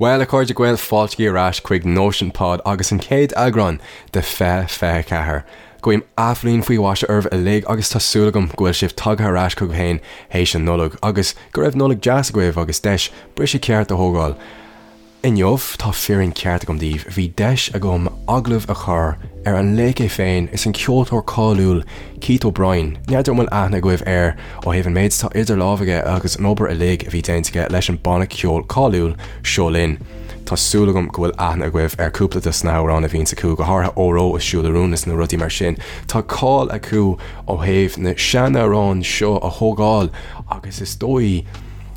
Bhuel, a chairde Gael, fáilte ar ais chuig Nóisean Pod agus an chéad eagrán de 2024. Guím athbhliain faoi mhaise oraibh uilig agus tá súil agam go bhfuil sibh tagtha ar ais chugaibh féin théis an Nollag agus go raibh Nollaig deas agaibh agus deis briseadh ceart a thógáil. Inniu, tá fírinne ceart agam daoibh, bhí deis agam agallamh a chur ar an laoch é féin is an ceoltóir cáiliúil Keith O'Brien. N'fheadar an bhfuil aithne agaibh air ó thaobh an méid atá idir lámh aige agus an obair uilig a bhí déanta aige leis an banna ceoil cáiliúil Seo Linn. Tá súil agam go bhfuil aithne agaibh ar cúpla de sna hamhráin a bhíonns acu, go háirithe Óró is Siúil a Rún is na rudaí mar sin. Tá cáil acu ó thaobh na seanamhráin seo a thógáil agus is dóigh,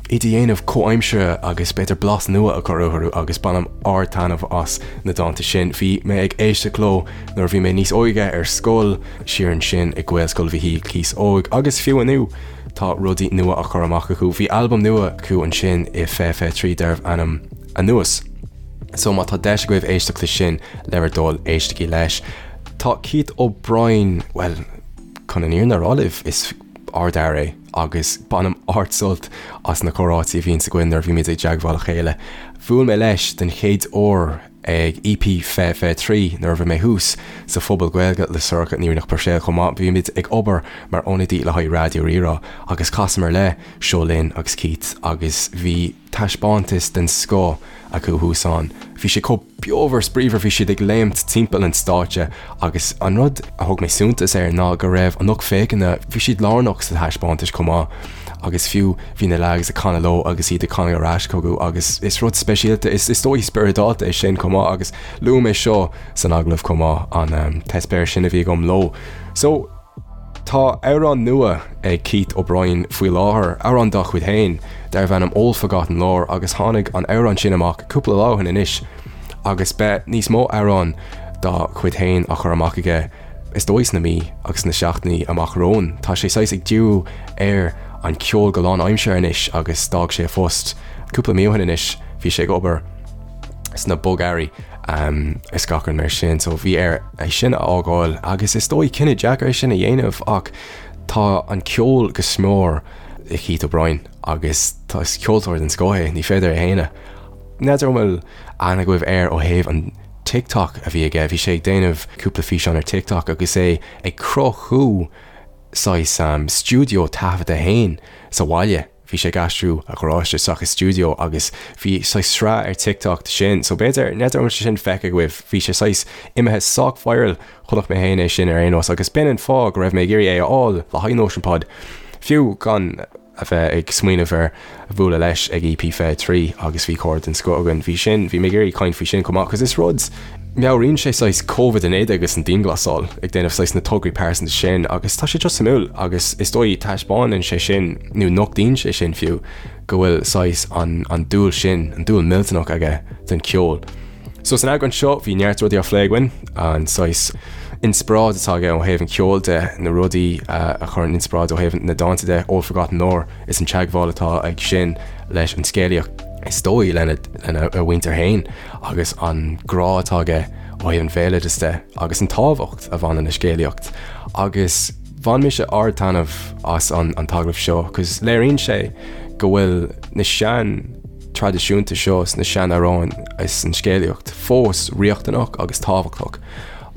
iad a dhéanamh comhaimseartha agus b'fhéidir blas nua a chur orthu agus bainim ard-taitneamh as na dánta sin. Bhí mé ag éisteacht leo nuair a bhí mé níos óige ar scoil, siar ansin i Gaelscoil Mhichíl Cíosóg agus fiú inniu tá rudaí nua á chur amach acu. Bhí albam nua acu ansin i 2023 darbh ainm Anuas. So má tá deis agaibh éisteacht leis sin, le bhur dtoil, éistigí leis. Tá Keith O'Brien, bhuel, chun an fhírinne a rá libh, is ardfhear é. agus bainim ard-sult as na comhráití a bhíonns againn nuair a bhímid i dteagmháil le chéile. Bhuail mé leis den chéad uair ag EP 2023 nuair a bhí mé thuas sa Phuball Gaeilge le Sorcha Ní Rianach Puirséil chomh maith. Bhí muid ag obair mar ionadaí le haghaidh Raidió Rí-Rá agus chasamar le Seo Linn agus Keith agus bhí taispeántas den scoth acu thuas ann. Bhí sé chomh beomhar spraíomhar, bhí siad ag léimt timpeall an stáitse agus an rud a thug mé suntas air ná go raibh an lucht féachana, bhí siad lárnach sa taispeántas chomh maith agus fiú bhí na leaids ag canadh leo agus iad ag canadh ar ais chucu agus is rud speisialta, is is dóigh spioradálta é sin chomh maith agus luaigh mé seo san agallamh chomh maith, an t-eispéireas sin a bhí agam leo. So. Tá amhrán nua ag Keith O'Brien faoi láthair, amhrán dá chuid féin, darbh ainm Old Forgotten Lore agus tháinig an amhrán sin amach cúpla lá ó shin anois agus beidh níos mó amhrán dá chuid féin á chur amach aige is dóigh sna mí agus sna seachtainí amach romhainn. Tá sé saghas ag díriú ar an cheol go lánaimseartha anois agus d'fhág sé a phost cúpla mí ó shin anois, bhí sé ag obair sna bogearraí. is gach rud mar sin. So bhí air é sin a fhágáil agus is dóigh cinneadh deacair é sin a dhéanamh ach tá an ceol go smior i Keith O'Brien agus tá is ceoltóir den scoth é, ní féidir a shéanadh. N'fheadar an bhfuil aithne agaibh air ó thaobh an TikTok a bhí aige, bhí sé ag déanamh cúpla físeán ar TikTok agus é ag cruthú saghas stiúideo taifeadta féin sa bhaile. Bhí sé ag aistriú a gharáiste isteach i stiúideo agus bhí saghas sraith ar TikTok de sin, so b'fhéidir, n'fheadar an bhfuil sé sin feicthe agaibh, bhí sé saghas imithe sách viral, chonaic mé féin é sin ar aon nós agus b'in an fáth go raibh mé ag iarraidh é a fháil le haghaidh Nóisean Pod, fiú gan a bheith ag smaoineamh ar bhualadh leis ag EP 23 agus bhí comhrá den scoth againn, bhí sin, bhí mé ag iarraidh caint faoi sin chomh maith, cos is rud. Meabhraíonn sé saghas Covid-19 agus an dianghlasáil, ag déanamh saghas na tograí pearsanta sin agus tá sé just suimiúil agus is dóigh taispeánann sé sin, nó nochtaíonn sé sin fiú, go bhfuil saghas an an dúil sin, an dúil millteanach aige don cheol. So san eagrán seo bhí neart rudaí á phlé againn, an saghas inspioráid atá aige ó thaobh an cheoil de, na rudaí a chuireann inspioráid ó thaobh na dánta de, Old Forgotten Lore is an teagmháil atá aige sin leis an scéalaíocht is dóigh lena lena a mhuintir féin. agus an grá atá aige ó thaobh an bhéaloidis de agus an tábhacht a bhaineann le scéalaíocht agus bhain mise ard-taitneamh as an an t-agallamh seo cos léiríonn sé go bhfuil na sean traidisiúnta seo is na sean-amhráin is an scéalaíocht fós riachtanach agus tábhachtach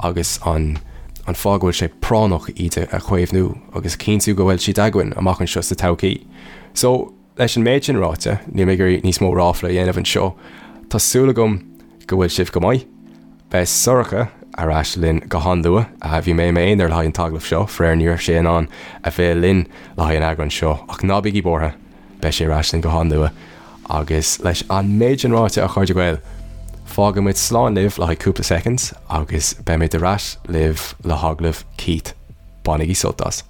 agus an an fáth go bhfuil sé práinneach iad a chaomhnú agus a chinntiú go bhfuil siad againn amach anseo sa todhchaí. So, Leis an méid sin ráite, níl mé ag iarraidh níos mó ráfla a dhéanamh anseo. Tá súil agam go bhfuil sibh go maith. Beidh Sorcha ar ais linn go han-luath. Bhí mé i m'aonar le haghaidh an t-agallamh seo, faraor ní raibh sé in ann a bheith linn le haghaidh an eagráin seo, ach ná bígí buartha, beidh sé ar ais linn go han-luath. Agus leis an méid sin ráite, a chairde Gael, fágfaidh muid slán libh le haghaidh cúpla soicind agus beimid ar ais libh le hagallamh Keith. Bainigí sult as.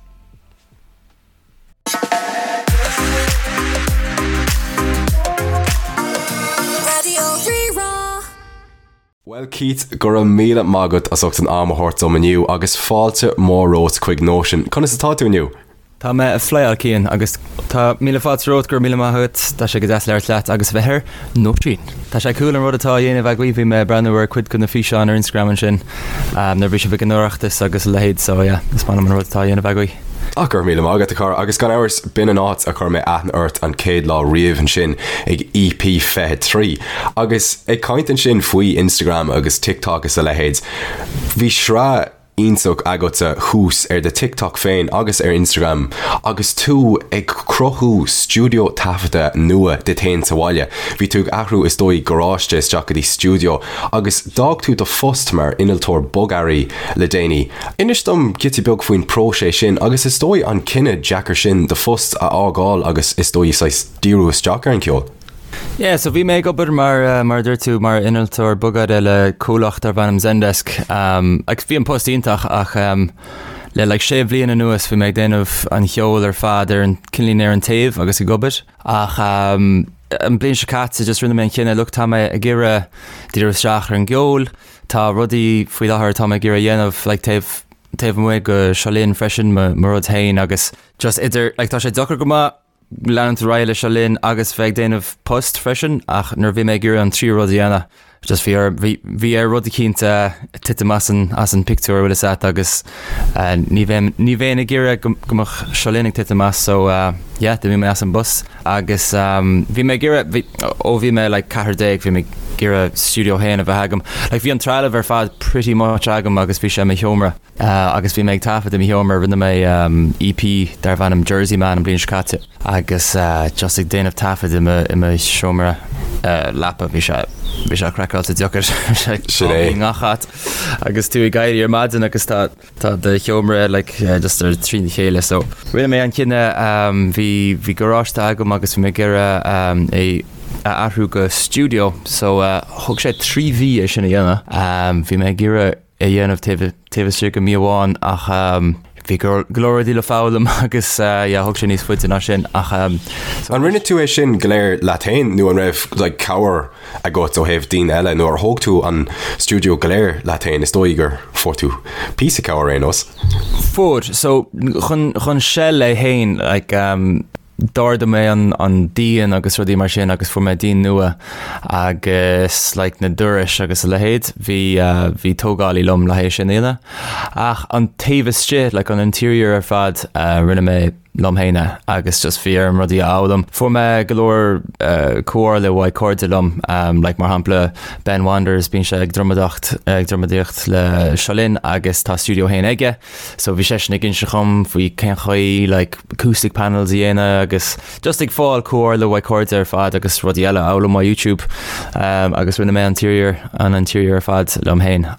Raidió Rí-Rá. Bhuel Keith, go raibh míle maith agat as ucht an am a thabhairt dom inniu agus fáilte mhór romhat chuig Nóisean. Conas atá tú inniu? Tá mé ag flyáil Cian agus tá míle fáilte romhat, go raibh míle maith agat. Tá sé go deas labhairt leat agus a bheith ar Nóisean. Tá sé cool an rud atá á dhéanamh agaibh, bhí mé ag breathnú ar cuid de na físeáin ar Instagram ansin nuair a bhí sibh ag an Oireachtas agus a leithéid so yeah, is maith liom an rud atá á dhéanamh agaibh. Ah, go raibh míle maith agat, a chara, agus gan amhras, b'in an áit a chuir mé aithne ort an chéad lá riamh ansin ag EP 23. Agus ag caint ansin faoi Instagram agus TikTok is a leithéid, bhí sraith iontach agatsa thuas ar do TikTok féin agus ar Instagram agus tú ag cruthú stiúideo taifeadta nua duit féin sa bhaile. Bhí tú ag athrú is dóigh garáiste isteach go dtí stiúideo agus d'fhág tú do phost mar innealtóir bogearraí le déanaí. Inis dom giota beag faoin próiseas sin agus is dóigh an cinneadh deacair sin do phost a fhágáil agus is dóigh saghas díriú isteach ar an cheol. Yeah, so bhí mé ag obair mar, mar a dúirt tú, mar innealtóir bogearraí le comhlacht darb ainm Zendesk. Um, agus bhí an post iontach ach um, le like sé bhliain anuas bhí mé ag déanamh an cheol ar fad ar an cineáilín ar an taobh agus ag obair. Ach um, an bliain seo caite just rinne mé an cinneadh, look, tá mé ag iarraidh díriú isteach ar an gceol, Tá rudaí faoi láthair atá mé ag iarraidh a dhéanamh like taobh taobh amuigh de Seo Linn freisin mo mo rud féin agus just idir like tá sé deacair go maith leanúint ar aghaidh le Seo Linn agus bheith ag déanamh post freisin ach nuair a bhí mé ag iarraidh an tríú rud a dhéanamh just bhí ar bhí bhí ar rud eicínt titim as an as an pictiúr bhfuil fhios a't agus ní bheinn ní bheinn ag iarraidh go go mbeadh Seo Linn ag titim as so yeah d'imigh mé as an bpost. Agus bhí mé ag iarraidh, bhí, ó bhí mé like 14 bhí mé ag iarraidh stiúideo féin a bheith agam. Like bhí an trealamh ar fad pretty much agam agus bhí sé i mo sheomra. Agus bhí mé ag taifead i mo sheomra, rinne mé EP darbh ainm Jersey Man an bliain seo caite agus just ag déanamh taifead i mo, i mo sheomra leapa bhí sé, bhí sé craiceáilte deacair. Sin é. I ngach áit agus tú ag éirí ar maidin agus tá, Tá do sheomra like just ar trína chéile so rinne mé an cinneadh bhí bhí garáiste agam agus bhí mé ag iarraidh é a athrú go stiúideo so thóg sé 3 mhí é sin a dhéanamh. Bhí mé ag iarraidh é a dhéanamh taobh taobh istigh de mí amháin ach bhí go leor rudaí le foghlaim agus yeah thóg sé níos faide ná sin ach An rinne tú é sin go léir leat féin nó an raibh like cabhair agat ó thaobh daoine eile nó ar thóg tú an stiúideo go léir leat féin, is dóigh gur fuair tú píosa cabhair ar aon nós. Fuair, so chun, chun shell é féin, like um, d'ardaigh mé an, an díon agus rudaí mar sin agus fuair mé díon nua agus like na dorais agus a leithéid, bhí uh, bhí tógálaí liom le haghaidh sin a dhéanamh. Ach an taobh istigh, like an interior ar fad, uh, rinne mé liom féin é agus just bhí orm rudaí a fhoghlaim. Fuair mé go leor comhairle uaidh cairde liom, like mar shampla Ben Wanders, bíonn sé ag drumadóireacht ag drumadóireacht le Seo Linn agus tá stiúideo féin aige, so bhí seisean ag inse dhom faoi cén chaoi like acoustic panels a dhéanamh agus just ag fáil comhairle uaidh cairde ar fad agus rudaí eile a fhoghlaim ó YouTube agus rinne mé an interior an interior ar fad liom féin.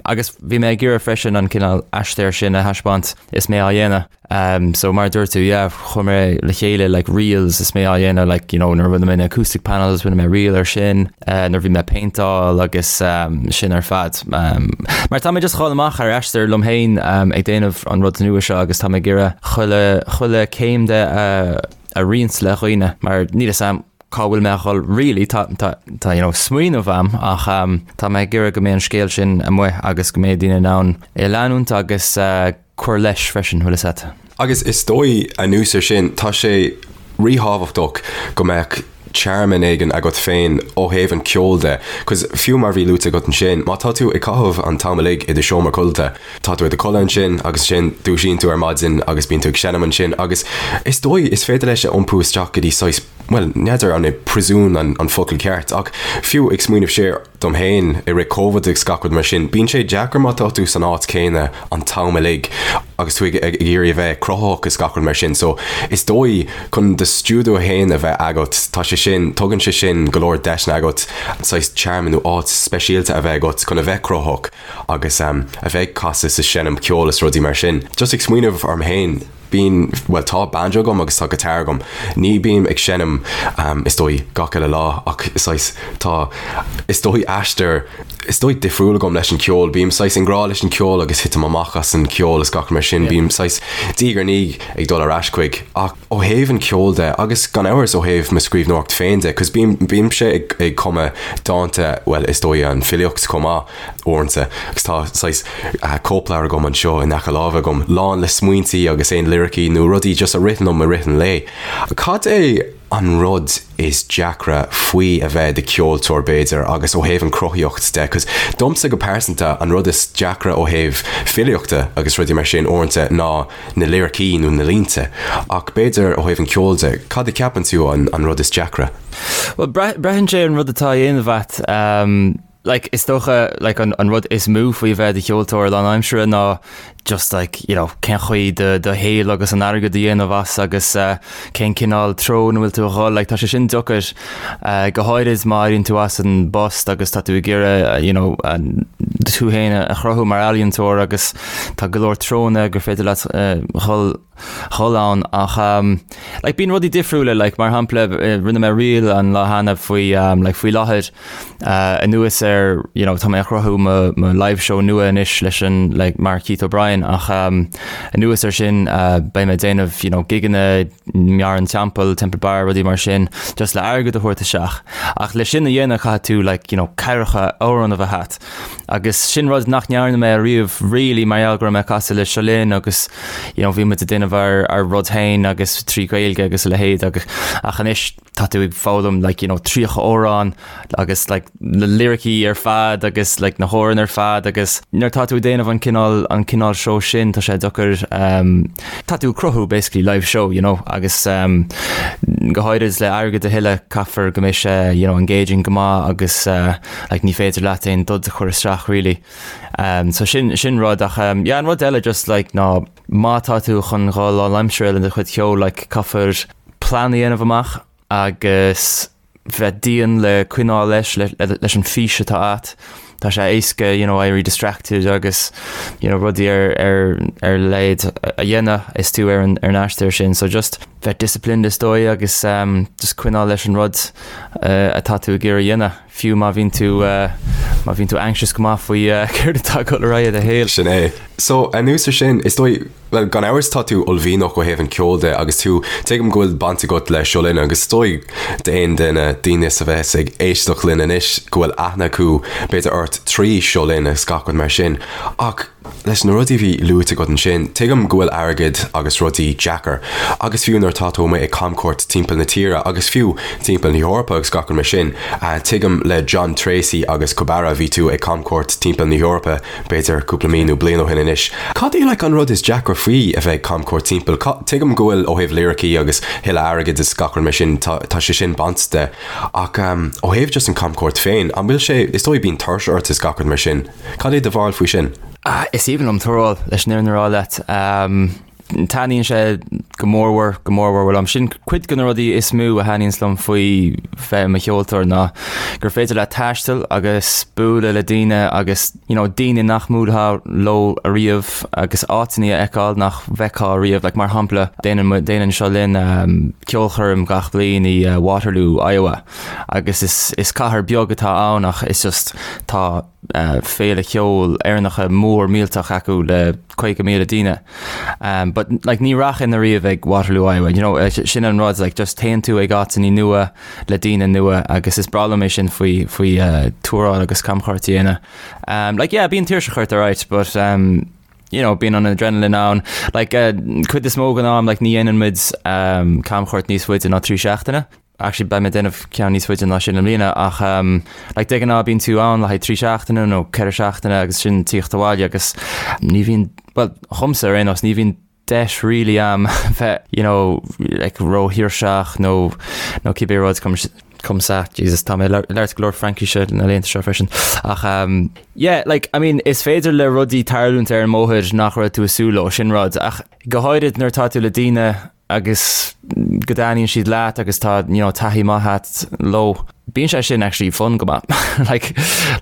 Agus bhí mé ag iarraidh freisin an cineál aistear sin a thaispeáint is mé á dhéanamh. Um, so mar a dúirt tú, yeah, chuir mé le chéile like reels is mé á dhéanamh like, you know, nuair a rinne mé na acoustic panels, rinne mé reel ar sin, uh, nuair a bhí mé péinteáil agus um, sin ar fad. Um, mar tá mé just dhul amach ar aistear liom féin um, ag déanamh an rud nua seo agus tá mé ag iarraidh chuile, chuile céim de uh, a roinnt le dhaoine mar níl fhios a'm cá bhfuil mé a dhul really, tá, tá, tá, you know, smaoineamh a'm ach um, tá mé ag iarraidh go mbeidh an scéal sin amuigh agus go mbeidh daoine in ann é a leanúint agus uh, cur leis freisin, bhfuil fhios a'd. Agus is dóigh, anuas ar sin, tá sé ríthábhachtach go mbeadh tearmann éigin agat féin ó thaobh an cheoil de, 'cause fiú mar bhí luaite agat ansin, má tá tú ag caitheamh an t-am uilig i do sheomra codlata, tá tú i do chodladh ansin agus ansin dúisíonn tú ar maidin agus bíonn tú ag seinm ansin agus is dóigh is féidir leis a iompú isteach go dtí saghas, bhuel, n'fheadar an é príosún an focal ceart ach fiú ag smaoineamh siar, dom féin i rith Covid agus gach rud mar sin, bíonn sé deacair má tá tú san áit céanna an t-am uilig agus tú ag iarraidh a bheith cruthaitheach is gach rud mar sin. So is dóigh chun do stiúideo féin a bheith agat, tá sé sin, tugann sé sin go leor deiseanna agat saghas tearmann nó áit speisialta a bheith agat chun a bheith cruthaitheach agus a bheith ag casadh is ag seinm ceoil is rudaí mar sin. Just ag smaoineamh orm féin, Bíonn, bhuel tá banjo agam agus tá guitar agam. Ní bím ag seinm is dóigh gach uile lá ach saghas tá is dóigh aistear is dóigh difriúil agam leis an ceol. Bím saghas i ngrá leis an ceol agus titim amach as an ceol is gach mar sin. Bím saghas diaidh ar ndiaidh ag dul ar ais chuig ach ó thaobh an ceoil de agus gan amhras ó thaobh mo scríbhneoireacht féin de 'cause bím bímse ag ag cumadh dánta bhuel is dóigh an filíocht chomh maith. uaireanta agus tá saghas cóipleabhar agam anseo in aice láimhe agam lán le smaointí agus aon liricí nó rudaí just a ritheann liom i rith an lae. Cad é an rud is deacra faoi a bheith i do cheoltóir b'fhéidir agus ó thaobh an cruthaíocht de 'cause domsa go pearsanta an rud is deacra ó thaobh filíochta agus rudaí mar sin uaireanta ná na liricí nó na línte ach b'fhéidir ó thaobh an ceoil de, cad a cheapann tú an an rud is deacra? Bhuel braitheann sé ar an rud atá á dhéanamh agat. Like is dócha like an an rud is mó faoi bheith i do cheoltóir lánaimseartha ná just like you know cén chaoi do do shaol agus an airgead a dhéanamh as agus eh cén cineál treo ina bhfuil tú a dhul like tá sé sin deacair eh go háirid má éiríonn tú as an bpost agus tá tú ag iarraidh you know tú féin a chruthú mar ealaíontóir agus tá go leor treonna gur féidir leat eh dhul dhul ann ach like bíonn rudaí difriúla like mar shampla rinne mé reel an lá cheana faoi like faoi láthair anuas ar you know tá mé ag cruthú mo mo live show nua anois leis an like mar Keith O'Brien ach anuas ar sin beidh mé ag déanamh you know gigeanna i mBarr an Teampaill, Temple Bar, rudaí mar sin just le airgead a thabhairt isteach ach le sin a dhéanamh caithfidh tú like you know ceathracha amhrán a bheith agat. Agus sin rud nach ndearna mé ariamh really mar gheall go raibh mé ag casadh le Seo Linn agus you know bhí muid ag déanamh ár ár rud féin agus trí Ghaeilge agus a leithéid agus ach anois tá tú ag foghlaim like you know 30 amhrán agus like na liricí ar fad agus like na hamhráin ar fad agus nuair tá tú ag déanamh an cineál an cineál seó sin tá sé deacair um, tá tú ag cruthú basically live show you know agus um, go háirid le airgead a thuilleamh caithfear go mbeidh sé you know engaging go maith agus uh, like ní féidir leat aon dud a chur isteach really. Um, so sin, sin rud ach um, yeah, an rud eile just like ná má tá tú chun dhul lánaimseartha le do chuid ceoil like caithfear plean a dhéanamh amach agus bheith dian le coinneáil leis, le, le, leis an fís atá agat. Tá sé éasca you know, éirí distracted agus you know, rudaí ar, ar, ar leithéid a dhéanamh is tú ar an, ar an aistear sin. So just bheith disciplined is dóigh agus um, just coinneáil leis an rud uh, atá tú ag iarraidh a dhéanamh. Fiú má bhíonn tú má bhíonn tú anxious go maith faoi céard atá ag dul ar aghaidh i do shaol. Sin é. So, anuas ar sin, is dóigh, bhuel, gan amhras tá tú uaillmhianach ó thaobh an ceoil de agus tú, tuigim go bhfuil baint agat le Seo Linn agus is dóigh d'aon duine, daoine a bheas ag éisteacht linn anois go bhfuil aithne acu b'fhéidir ort trí Seo Linn agus gach rud mar sin. Ach Leis na rudaí a bhí luaite agat ansin, tuigim go bhfuil airgead agus rudaí deacair, agus fiú nuair atá tú amuigh ag camchuairt timpeall na tíre agus fiú timpeall na hEorpa agus gach rud mar sin, tuigim le John Treacy agus Kubara bhí tú ag camchuairt timpeall na hEorpa b'fhéidir cúpla mí nó bliain ó shin anois. Cad é like an rud is deacra faoi a bheith ag camchuairt timpeall? Tuigim go bhfuil ó thaobh liricí agus thuilleadh airgid is gach rud mar sin, tá tá sé sin bainte de ach ó thaobh just an camchuairt féin, an bhfuil sé, is dóigh bíonn tuirse ort is gach rud mar sin. Cad é do bharúil faoi sin? Is aoibhinn liom tuaráil, leis an fhírinne a rá leat. Taitníonn sé go mórmhór, go mórmhór liom. Sin cuid de na rudaí is mó a thaitníonns liom faoi bheith i mo cheoltóir ná gur féidir leat taisteal agus bualadh le daoine agus you know, daoine nach mbuailfeá leo ariamh agus áiteanna a fheiceáil nach bhfeicfeá ariamh. Like, mar shampla, déanann, déanann Seo Linn um, ceolchoirm gach bliain i uh, Waterloo, Iowa. Agus is, is cathair beag atá ann ach is just tá féile cheoil Éireannacha mór millteach acu le 50,000 daoine. Um, but like, ní rachainn ariamh ag Waterloo, Iowa. You know, sin an rud, like, just téann tú ag áiteanna nua le daoine nua agus is breá liom é sin faoi, faoi uh, tuaráil agus camchuairt a dhéanamh. Um, like, yeah, bíonn tuirseach ort alright, but um, you know, bíonn an adrenaline ann. Like, uh, cuid is mó den am, like, ní dhéanann muid um, camchuairt níos faide ná 3 seachtaine. Actually beidh mé ag déanamh ceann níos faide ná sin i mbliana ach um, like, de ghnáth bíonn tú ann le haghaidh 3 seachtaine nó 4 seachtaine agus sin tíocht abhaile agus ní bhíonn, well, dhomsa ar aon nós, ní bhíonn deis really a'm bheith, you know, like, róthuirseach nó nó cibé rud comme, comme ça, Jesus, tá mé ag labhairt go leor Fraincise na laethanta seo freisin. Ach um, yeah, like, I mean, is féidir le rudaí tarlúint ar an mbóthar nach raibh tú ag súil leo, sin rud, ach go háirid nuair atá tú le daoine agus go dtaitníonn siad leat agus tá you know, taithí maith agat leo. Bíonn sé sin actually fun go maith. like,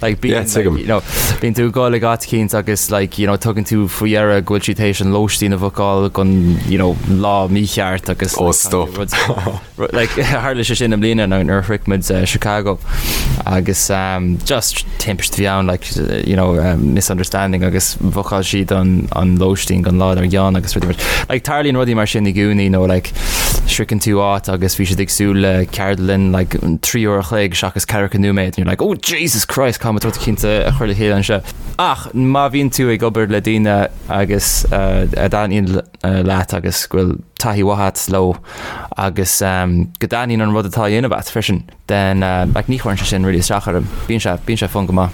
like, bíonn, Yeah, tuigim. like, you know, bíonn tú ag dul ag áit eicínt agus like, you know, tugann tú faoi deara go bhfuil siad théis an lóistín a bhookáil don you know, lá mícheart agus Oh, like, stop. rud- Like, tharla sé sin i mbliana nuair a shroich muid eh, Chicago agus um, just timpiste a bhí ann like, you know, um, misunderstanding agus bhookáil siad an, an lóistín don lá dár gcionn agus rudaí mar like, tarlaíonn rudaí mar sin i gcónaí nó like, sroicheann tú áit agus bhí siad ag súil le ceardlann like, 3 uair a chloig seachas 40 nóiméad and you're like, oh Jesus Christ, caithfidh muid rud eicínt a chur le chéile anseo. Ach má bhíonn tú ag obair le daoine agus uh, a dtaitníonn leat agus go bhfuil taithí mhaith agat leo agus go dtaitníonn an rud atá á dhéanamh agat freisin, then like ní chuireann sé sin really isteach orm. Bíonn sé, bíonn sé fun go maith.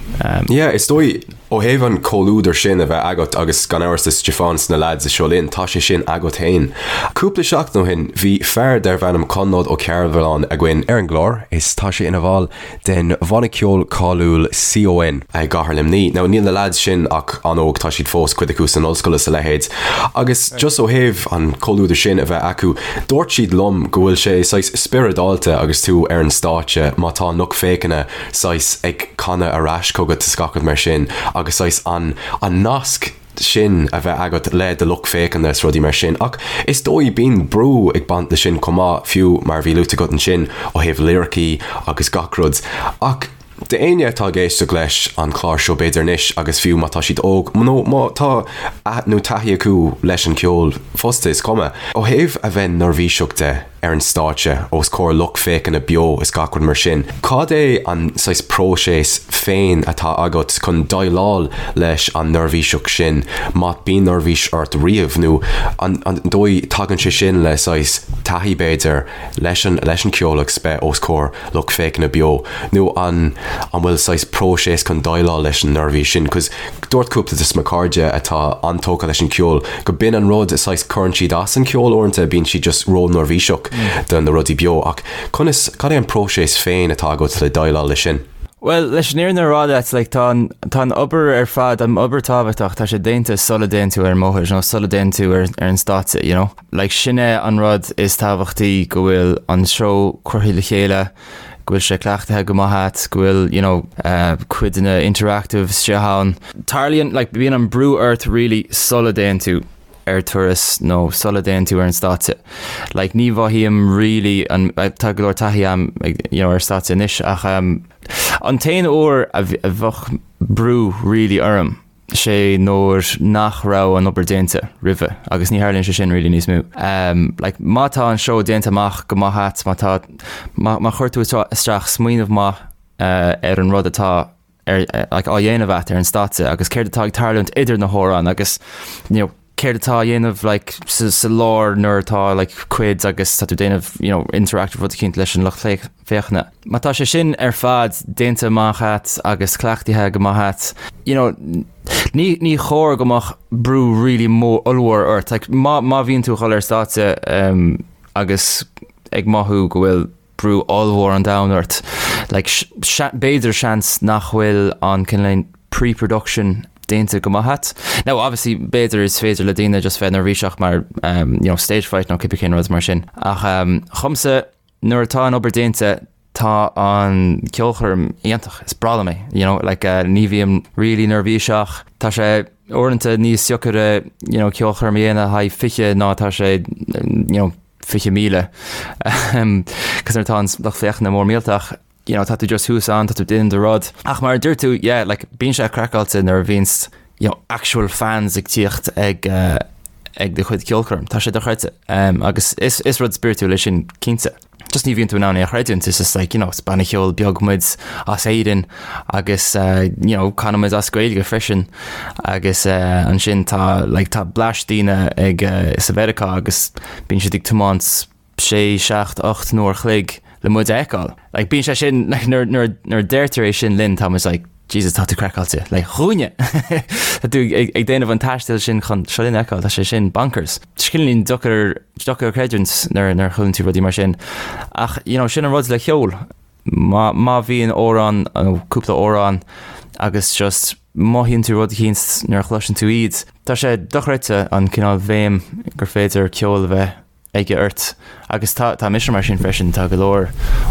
Yeah, is dóigh, ó thaobh an comhluadar sin a bheith agat agus gan amhras le Stiofán is na lads i Seo Linn, tá sé sin agat féin. Cúpla seachtain ó shin, bhí fear darbh ainm Conleth Ó Cearbhalláin againn ar an gclár is tá sé ina bhall den bhanna ceoil cáiliúil CON i gcathair Luimnigh. Now níl na lads sin ach an-óg, tá siad fós, cuid acu san ollscoil is a leithéid. Agus just ó thaobh an comhluadar sin a bheith acu, dúirt siad liom go bhfuil sé saghas spioradálta agus tú ar an stáitse má tá an lucht féachana saghas ag canadh ar ais chugat is gach rud mar sin agus saghas an an nasc sin a bheith agat le do lucht féachana is rudaí mar sin. Ach is dóigh bíonn brú ag baint leis sin chomh maith, fiú mar a bhí luaite agat ansin ó thaobh liricí agus gach rud. Ach d'éinne atá ag éisteacht leis an chlár seo b'fhéidir anois agus fiú má tá siad óg nó má tá nó taithí acu leis an cheol fosta is cuma. Ó thaobh a bheith neirbhíseach de, ar an stáitse os comhair lucht féachana beo is gach rud mar sin. Cad é an saghas próiseas féin atá agat chun déileáil leis an neirbhíseacht sin, má bíonn neirbhís ort riamh, nó an dóigh tagann sé sin le saghas taithí b'fhéidir leis an leis an ceol agus bheith os comhair lucht féachana beo, nó an an bhfuil saghas próiseas chun déileáil leis an neirbhís sin? 'Cause Dúirt cúpla de mo chairde atá an-tógtha leis an ceol go b'in an rud, saghas cuireann siad as an ceol uaireanta, bíonn siad just ró-neirbhíseach do na rudaí beo ach conas, cad é an próiseas féin atá agat le déileáil leis sin? Bhuel, leis an fhírinne a rá leat, like, tá an, tá an obair ar fad, an obair tábhachtach, tá sé déanta sula dtéann tú ar an mbóthar nó sula dtéann tú ar, ar an stáitse, you know? Like, sin é an rud is tábhachtaí go bhfuil an seó curtha le chéile, go bhfuil sé cleachtaithe go maith agat, go bhfuil, you know, cuid de na interactive istigh ann. Tarlaíonn, like, bíonn an brú ort really sula dtéann tú ar turas nó sula dtéann tú ar an stáitse. Like, ní mhothaím really an, tá go leor taithí agam, you know, ar stáitse anois ach um, an t-aon uair a bheadh brú really orm, sé nuair nach raibh an obair déanta roimhe agus ní tharlaíonn sé sin really níos mó. Like má tá an seó déanta amach go maith agat, má tá, má, má chuir tú isteach smaoineamh maith ar an rud atá ar, like, á dhéanamh agat ar an stáitse agus céard atá ag tarlúint idir na hamhráin agus you know, céard atá á dhéanamh like, sa, sa lár nuair atá like, cuid agus tá tú déanamh you know, interactive rud eicínt leis an lucht féachana. Má tá sé sin ar fad déanta amach agat agus cleachtaithe go maith agat, you know, ní, ní chóir go mbeadh brú really mór ollmhór ort. Like, má, má bhíonn tú ag dul ar stáitse um, agus ag mothú go bhfuil brú ollmhór an domhain ort, like, b'fhéidir seans nach bhfuil an cineál pre-production déanta go maith agat. Now obviously b'fhéidir is féidir le daoine just bheith neirbhíseach mar um, you know, stage fright nó cibé cén rud mar sin. Ach um, dhomsa nuair atá an obair déanta tá an ceolchoirm iontach, is breá liom é, you know, like, uh, ní bhím really neirbhíseach, tá sé uaireanta níos deacaire, you know, ceolchoirm a dhéanamh le haghaidh 20 ná tá sé, you know, 20,000, cos nuair atá an lucht féachana mór millteach, you know, tá tú just thuas ann, tá tú déanamh do rud. Ach mar a dúirt tú, yeah, like, bíonn sé craiceáilte nuair a bhíonns, you know, actual fans ag tíocht ag, uh, ag do chuid ceolchoirm. Tá sé dochreidte. Um, agus is, is rud spiritual é sin cinnte. Just ní bhíonn tú in ann é a chreidiúint, it's just like, you know, is banna ceoil beag muid as Éirinn agus, uh, you know, canann muid as Gaeilge freisin agus uh, ansin tá, like, tá bleaist daoine ag, uh, sa Mheiriceá agus bíonn siad ag tiomáint sé, seacht, 8 n-uair a chloig le muid a fheiceáil. Like, bíonn sé sin, like, nuair, nuair, nuair a deirtear é sin linn, tá muid like, Jesus, tá tú craiceáilte. Like, dhúinne! Tá tú ag, ag déanamh an taistil sin chun Seo Linn a fheiceáil, tá sé sin bonkers. Cineáilín deacair, deacair a chreidiúint nuair, nuair a chualann tú rudaí mar sin. Ach, you know, sin an rud le ceol. Má, má bhíonn amhrán, nó cúpla amhrán, agus just mothaíonn tú rud eicínt nuair a chloiseann tú iad, tá sé dochreidte an cineál bhfeidhm gur féidir ceol a bheith aige ort. Agus tá, tá mise mar sin freisin, tá go leor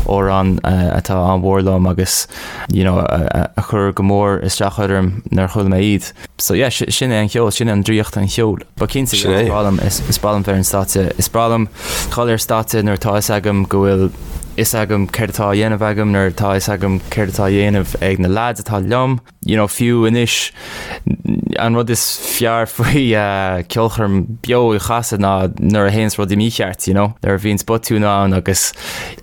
amhrán atá an-mhór liom agus you know, a, a chuir go mór isteach orm nuair a chuala mé iad. So yeah, sin é an ceol, sin é an draíocht an cheoil. But cinnte, Sin é. is breá liom, is, is breá liom bheith ar an stáitse, is breá liom dhul ar stáitse nuair atá fhios agam go bhfuil fhios agam céard atá á dhéanamh agam, nuair atá fhios agam céard atá á dhéanamh ag na lads atá liom. You know, fiú anois, an rud is fearr faoi ceolchoirm beo a chasadh ná nuair a théanns rudaí mícheart, you know, nuair a bhíonns botún ann agus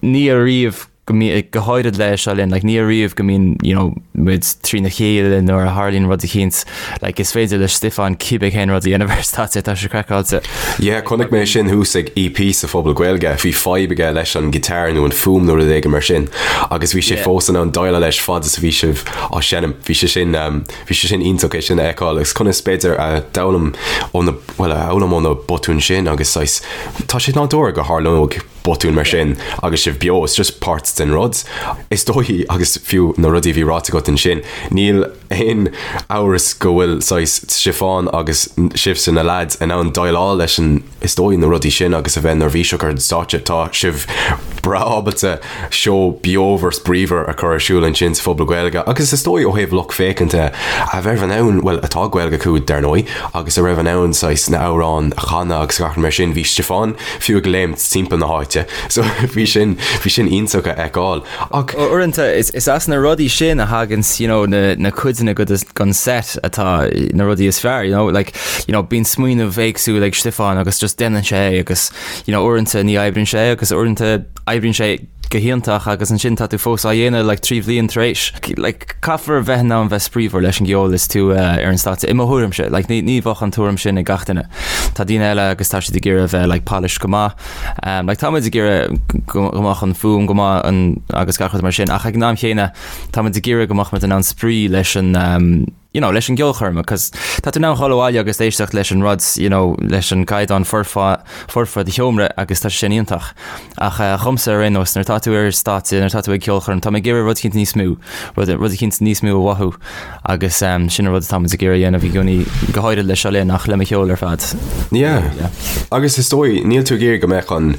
ní ariamh. go mbí, go háirid le Seo Linn, like ní ariamh go mbíonn, you know, muid trína chéile nuair a tharlaíonn rud eicínt, like is féidir le Stiofán cibé cén rud a dhéanamh ar stáitse, tá sé craiceáilte. Yeah, chonaic mé sin thuas ag EP sa Phuball Gaeilge, bhí fadhb aige leis an guitar nó an fuaim nó rud éigin mar sin agus bhí sé Yeah. fós in ann déileáil leis fad is a bhí sibh á seinm. Bhí sé sin, um, bhí sé sin iontach é sin a fheiceáil agus conas b'fhéidir a d'fhoghlaim ó na, bhuel, a fhoghlaim ó na botúin sin agus saghas, tá sé nádúrtha go tharlódh botún mar sin agus sibh beo, it's just páirt den rud. Is dóigh, agus fiú na rudaí a bhí ráite agat ansin, níl aon amhras go bhfuil saghas Stiofán agus sibhse na leaids in ann déileáil leis an, is dóigh, na rudaí sin agus a bheith neirbhíseach ar an stáitse. Tá sibh breá ábalta seó beomhar 's bríomhar a chur ar siúl ansin sa Phuball Gaeilge agus is dóigh ó thaobh lucht féachanta a bheith in ann, bhuel atá Gaeilge acu dar ndóigh, agus a raibh in ann saghas na hamhráin a chanadh agus gach rud mar sin, bhí Stiofán fiú ag léimt timpeall na háite so bhí sin, bhí sin iontach a fheiceáil ach. Uaireanta is as na rudaí sin a thaganns you know na, na cuideanna den set atá na rudaí is fearr you know like you know bíonn smaoineamh éagsúil ag Stiofán agus just déanann sé é agus you know uaireanta ní oibríonn sé agus uaireanta oibríonn sé go hiontach agus ansin tá tú fós á dhéanamh like 3 bhliain tar éis. Like caithfear bheith in ann bheith spraíúil leis an gceol is tú uh, ar an stáitse. I mo thuairimse, like ní, ní bheadh an tuairim sin ag gach duine. Tá daoine eile agus tá siad ag iarraidh bheith like polished go maith. Um, like tá muid ag iarraidh go, go mbeadh an fuaim go maith an, agus gach rud mar sin ach ag an am chéanna tá muid ag iarraidh go mbeadh muid in ann spraoi leis an um, you know, leis an gceolchoirm, cos tá tú in ann dhul abhaile agus éisteacht leis an rud, you know, leis an gcaighdeán foirfe, foirfe i do sheomra agus tá sé sin iontach. Ach eh, dhomsa ar aon nós, nuair atá tú ar stáitse, nuair atá tú ag ceolchoirm, tá mé ag iarraidh rud eicínt níos mó, rud, rud eicínt níos mó a mhothú agus um, sin an rud atá muid ag iarraidh a dhéanamh i gcónaí, go háirid le Seo Linn ach le mo cheol ar fad. Yeah. Yeah. Agus is dóigh, níl tú ag iarraidh go mbeadh an,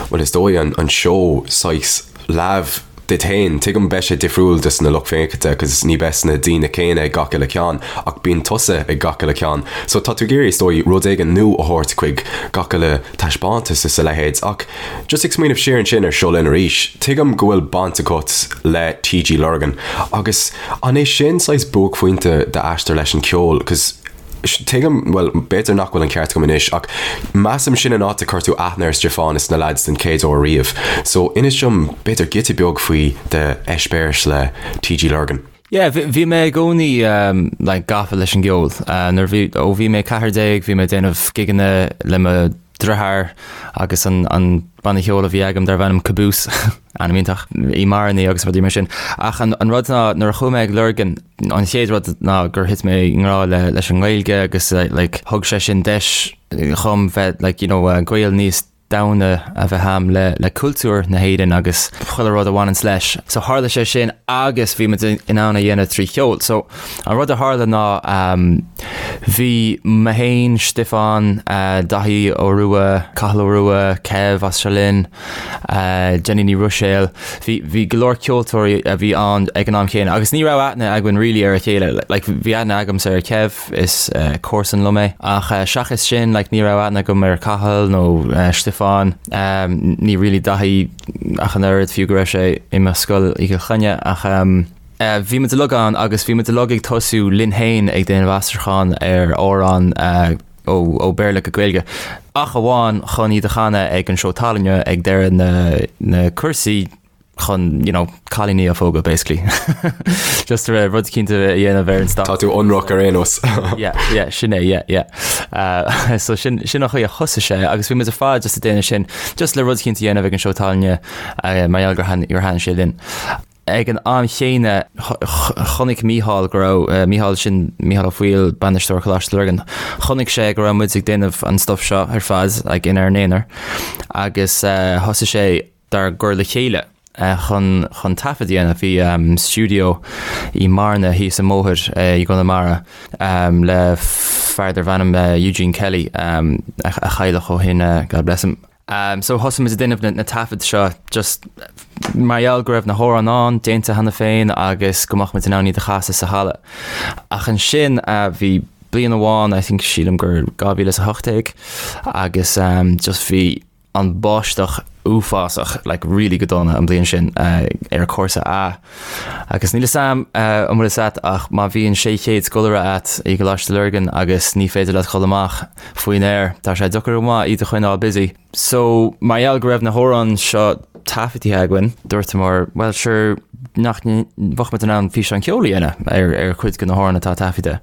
bhuel is dóigh an, an seó saghas leamh duit féin. Tuigim beidh sé difriúil dos na lucht féachanta cos ní beidh na daoine céanna ag gach uile ceann ach bíonn tusa ag gach uile ceann. So tá tú ag iarraidh is dóigh rud éigin nua a thabhairt chuig gach uile taispeántas is a leithéid ach just ag smaoineamh siar ansin ar Seo Linn arís, tuigim go bhfuil baint agat le TG Lurgan agus an é sin saghas buaicphointe d'aistear leis an ceol cos Tuigim, bhuel, b'fhéidir nach bhfuil an ceart agam anois, ach measaim sin an áit a chuir tú aithne ar Stiofán is na leaids den chéad uair riamh. So, inis dom, b'fhéidir, giota beag faoi d'eispéireas le TG Lurgan. Yeah, bhí mé i gcónaí like gafa leis an gceol. Nuair bhí, ó bhí mé 14 bhí mé ag déanamh gigeanna le mo dheartháir agus an an banna ceoil a bhí agam darbh ainm Caboose, ainm iontach, i mBearna agus rudaí mar sin. Ach an an rud ná nuair a chuaigh mé ag Lurgan, an chéad rud ná gur thit mé i ngrá le leis an nGaeilge agus like thug sé sin deis dhom bheith like you know gaol níos domhaine a bheith a'm le le cultúr na hÉireann agus chuile rud a bhaineanns leis. So tharla sé sin agus bhí muid in ann a dhéanamh trí cheol. So An rud a tharla ná bhí mé féin, Stiofán, Daithí Ó Rua, Cathal Ó Rua, Kev as Seo Linn, Jenny Ní Ruiséil, bhí bhí go leor ceoltóirí a bhí ann ag an am chéanna agus ní raibh aithne againn really ar a chéile. Like bhí aithne agamsa ar Kev, is comharsan liom é, ach seachas sin like ní raibh aithne agam ar Cathal nó Stiofán, ní really Daithí ach an oiread, fiú go raibh sé i mo scoil i gCill Chainnigh ach. Bhí muid uilig ann agus bhí muid uilig ag tosú linn féin ag déanamh aistriúchán ar amhráin ó Béarla go Gaeilge, ach amháin chun iad a chanadh ag an seó tallainne ag deireadh na na cúrsaí chun you know cailíní a phógadh basically. Just rud eicínt a dhéanamh ar an stáitse. Tá tú ionraic ar aon nós. Yeah, yeah, sin é, yeah, yeah. Uh, so sin, sin an chaoi a thosaigh sé agus bhí muid ar fad just ag déanamh sin just le rud eicínt a dhéanamh ag an seó tallainne uh, mar gheall gur thaitin sé linn. Ag an am chéanna, chonaic Mícheál go raibh, Mícheál sin Mícheál Ó Foighil, bainisteoir Choláiste Lurgan, chonaic sé go raibh muid ag déanamh an stuff seo ar fad like inár n-aonar agus thosaigh sé dár gcur le chéile chun chun taifead a dhéanamh. Bhí stiúideo i mBearna thíos an bóthar i gConamara le fear darbh ainm Eugene Kelly a cailleadh ó shin, God bless him. So thosaigh muid ag déanamh na taifid seo just mar gheall go raibh na hamhráin ann, déanta cheana féin agus go mbeadh muid in ann iad a chasadh sa halla. Ach ansin bhí bliain amháin, I think sílim gur 2018 agus just bhí an báisteach uafásach, like really go dona an bliain sin ar cúrsa A. Agus níl 'fhios a'm an bhfuil 'fhios a'd ach má bhíonn 600 scoláire a'd i gColáiste Lurgan agus ní féidir leat dhul amach faoin aer, tá sé deacair go maith iad a choinneáil busy. So mar gheall go raibh na hamhráin seo. taifeadtaithe againn, dúirteamar, bhuel sure, nach mbeadh muid in ann físeán ceoil a dhéanamh ar ar chuid de na hamhráin atá taifeadta.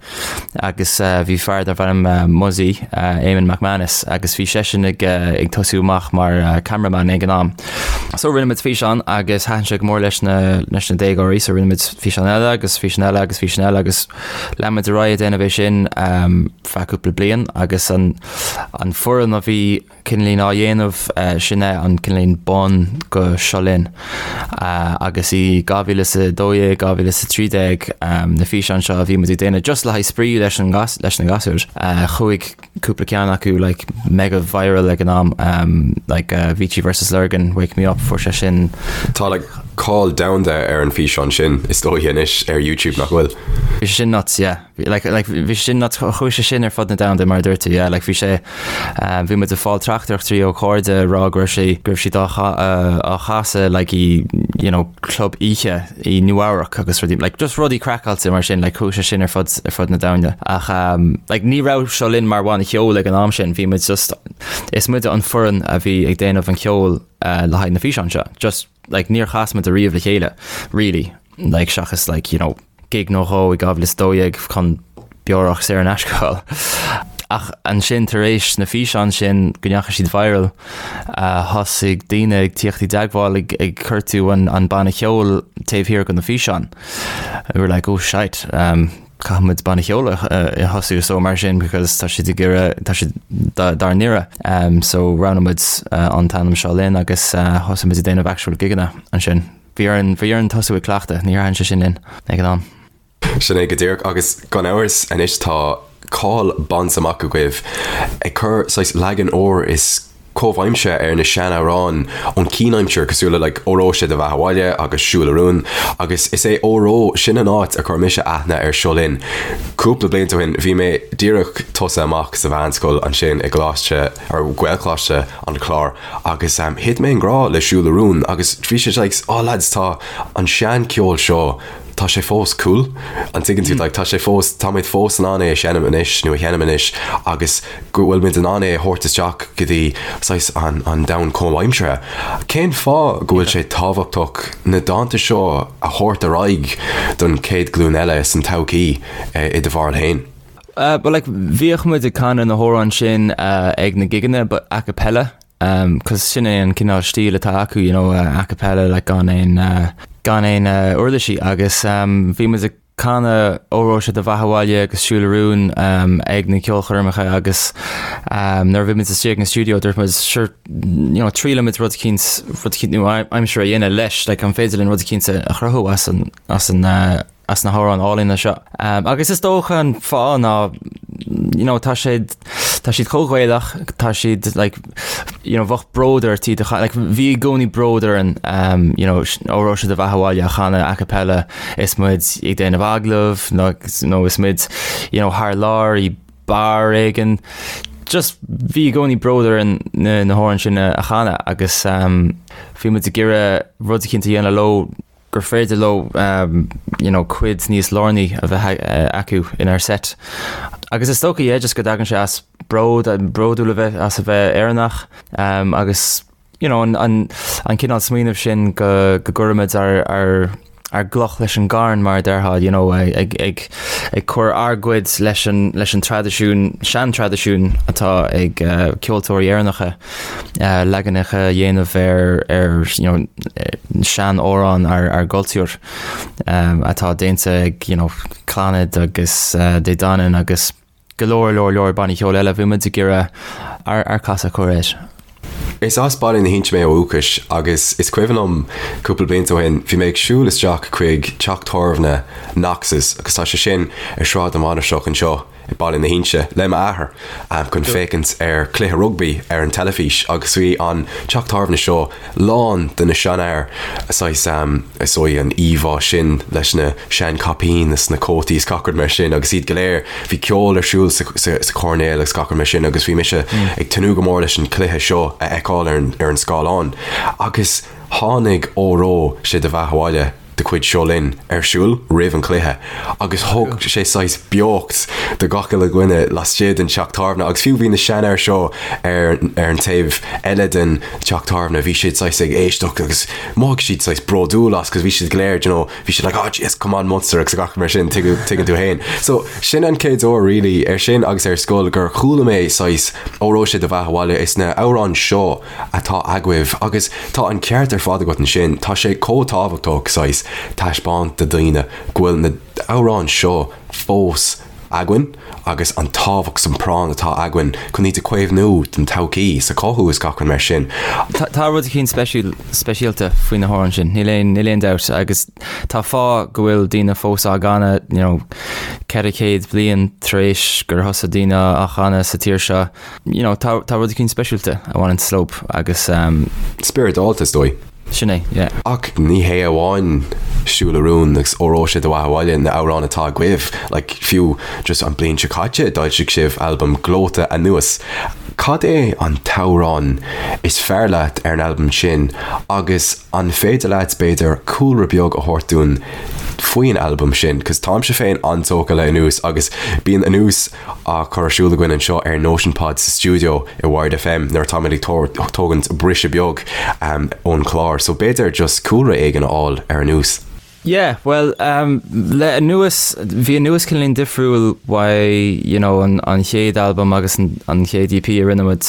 Agus bhí fear darbh ainm Muzzy, Eamon McManus, agus bhí seisean ag ag tosú amach mar cameraman ag an am. So rinne muid físeán agus thaitin sé go mór leis na leis na déagóirí, so rinne muid físeán eile agus físeán eile agus físeán eile agus lean muid ar aghaidh ag déanamh é sin feadh cúpla bliain agus an an foireann a bhí cineáilín á dhéanamh, sin é an cineáilín bun go Seo Linn. Agus i 2012, 2013 na físeáin seo a bhí muid ag déanamh just le haghaidh spraoi leis an leis na gasúir, chuaigh cúpla ceann acu like mega viral ag an am, like Avicii versus Lurgan, Wake Me Up, fuair sé sin. Tá like cáil domhanda ar an físeán sin is dóigh anois ar YouTube nach bhfuil? Bhí sé sin nuts, yeah. Like, like, bhí sé sin nuts, chuaigh sé sin ar fud na domhanda mar a dúirt tú, yeah, like, bhí sé, um, bhí muid ag fáil teachtaireachtaí ó chairde ag rá go raibh sé, go raibh siad á á chasadh, like, i, you know, club oíche i Nua-Eabhrac agus rudaí, like, just rudaí craiceáilte mar sin, like, chuaigh sé sin ar fud, ar fud na domhanda. Ach, um, like, ní raibh Seo Linn mar bhanna ceoil ag an am sin, bhí muid just, is muide an foireann a bhí ag déanamh an cheoil, uh, le haghaidh na físeán seo. Just, like, níor chas muid ariamh le chéile, really, like, seachas, like, you know, gig nó dhó i 2012 chun beorach saor in aisce a fháil. Ach ansin tar éis na físeáin sin go ndeachaigh siad viral, thosaigh daoine ag tíocht i dteagmháil ag ag cuartú an an banna cheoil taobh thiar de na físeáin. We were like oh shite, um, caithfidh muid banna cheoil a a thosú so mar sin because tá siad ag iarraidh tá siad dár n-iarraidh. Um, so roghnaigh muid an t-ainm Seo Linn agus thosaigh muid ag déanamh actual gigeanna ansin. Bhí orainn, bhí orainn tosú ag cleachtadh, ní dhearna sé sin linn ag an am. Sin é go díreach agus gan amhras anois tá cáil bainte amach agaibh ag cur saghas leagan úr is comhaimseartha ar na sean-amhráin ón chianaimsir cosúil le like Óró Sé do Bheatha 'Bhaile agus Siúil a Rún agus is é Óró sin an áit a chuir mise aithne ar Seo Linn. Cúpla blianta ó shin bhí mé díreach tosaithe amach sa mheánscoil ansin i gColáiste or Gaelcholáiste an Chláir Agus thit mé i ngrá le Siúil a Rún agus bhí sé like, oh lads tá an sean-cheol seo, tá sé fós cool, an dtuigeann tú, like tá sé fós, táimid fós in ann é a sheinm anois nó a sheinm anois agus go bhfuil muid in ann é a thabhairt isteach go dtí saghas an, an domhan comhaimseartha. Cén fáth go bhfuil sé tábhachtach na dánta seo a thabhairt ar aghaidh don chéad ghlúin eile san todhchaí i do bharúil féin? But like bhíodh muid ag canadh na hamhráin sin ag na gigeanna but a cappella cos sin é an cineál stíl atá acu you know a cappella like gan aon gan aon uirlisí agus bhí muid ag canadh Óró Sé do Bheatha 'Bhaile agus Siúil a Rún ag na ceolchoirmeacha agus nuair a bhí muid istigh ag an stiúideo dúirt muid sure you know triailfimid rud eicínt rud eicínt nua-aimseartha a dhéanamh leis like an féidir linn rud eicínt a chruthú as an as an as na hamhráin álainne seo. Agus is dócha an fáth ná you know, tá siad tá siad chomh Gaelach, tá siad like, you know, bheadh bród ort iad a like, bhí i gcónaí bród orainn um, you know, Óró Sé do Bheatha 'Bhaile a chanadh a cappella is muid ag déanamh agallamh nó, nó is muid you know, thar lear i beár éigin. Just bhí i gcónaí bród orainn na, na hamhráin sin a, a chanadh agus um, bhí muid ag iarraidh rud eicínt a dhéanamh leo gur féidir leo you know cuid níos lárnaí a bheith acu inár set. Agus is dócha yeah just go dtagann sé as bród, bródúil a bheith as a bheith Éireannach agus you know an an an cineál smaoineamh sin go go gcuirimid ár ár ár gcloch leis an gcarn mar a déarfá you know ag ag ag cur ár gcuid leis an leis an traidisiún sean-traidisiún atá ag ceoltóirí Éireannacha. leaganacha a dhéanamh ar ar you know sean-amhráin ár ár gcultúr atá déanta ag you know Clannad agus Dé Danann agus go leor leor leor bannaí ceoil eile. Bhí muid ag iarraidh ár ár casadh a chur air. Is as Baile na hInse mé ó dhúchas agus is cuimhin liom cúpla blianta ó shin bhí mé ag siúl isteach chuig teach tábhairne Knox's agus tá sé sin ar Sráid na Mainistreach anseo i Baile na hInse le m'athair chun féachaint ar chluiche rugbaí ar an teilifís agus bhí an teach tábhairne seo lán de na seanfhear saghas is dóigh an íomhá sin leis na seanchaipín is na cótaí is gach rud mar sin agus iad go léir bhí ceol ar siúl sa sa choirnéal agus gach rud mar sin agus bhí mise ag tnúth go mór leis an chluiche seo a fheiceáil ar an ar an scáileán agus tháinig Óró Sé do Bheatha 'Bhaile. de chuid Seo Linn ar siúl roimh an chluiche agus thug sé saghas beocht do gach uile dhuine laistigh den teach tábhairne agus fiú bhí na seanfhir seo ar ar an taobh eile den teach tábhairne, bhí siad saghas ag éisteacht agus mhothaigh siad saghas bródúil as cos bhí siad go léir you know, bhí siad like oh jeez come on Munster agus gach mar sin tuigeann tú féin. So sin an chéad uair really ar sin agus ar scoil gur chuala mé saghas Óró sé do bheatha abhaile is na amhráin seo atá agaibh agus tá an ceart ar fad agat ansin, tá sé chomh tábhachtach saghas taispeáint do daoine go bhfuil na amhráin seo fós againn agus an tábhacht 's an práinn atá againn chun iad a chaomhnú don todhchaí 's a chothú is gach rud mar sin. Tá rud eicínt speisialta faoi na hamhráin sin, níl aon níl aon dabht agus tá fáth go bhfuil daoine fós á gcanadh you know 400 bliain tar éis gur thosaigh daoine á chanadh sa tír seo. You know, tá tá rud eicínt speisialta a bhaineann leo agus um, Spioradálta is dóigh. Sin é, yeah. Ach ní hé amháin Siúil a Rún agus Óró sé do bheatha abhaile na amhráin atá agaibh, like fiú just an bliain seo caite d'fhoilsigh sibh albam gleoite Anuas. Cad é an t-amhrán is fearr leat ar an albam sin agus an féidir leat b'fhéidir cúlra beag a thabhairt dúinn faoin albam sin? 'Cause táimse féin an-tógtha le Anuas agus bíonn Anuas á chur ar siúl againn anseo ar Notion Pod sa stiúideo i Wired FM nuair atáimid ag tógaint briseadh beag ón chlár. So b'fhéidir just cúlra éigin a fháil ar Anuas. Yeah, bhuel, le Anuas, bhí Anuas cineáilín difriúil uaidh, you know, an an chéad albam agus an an chéad EP a rinne muid.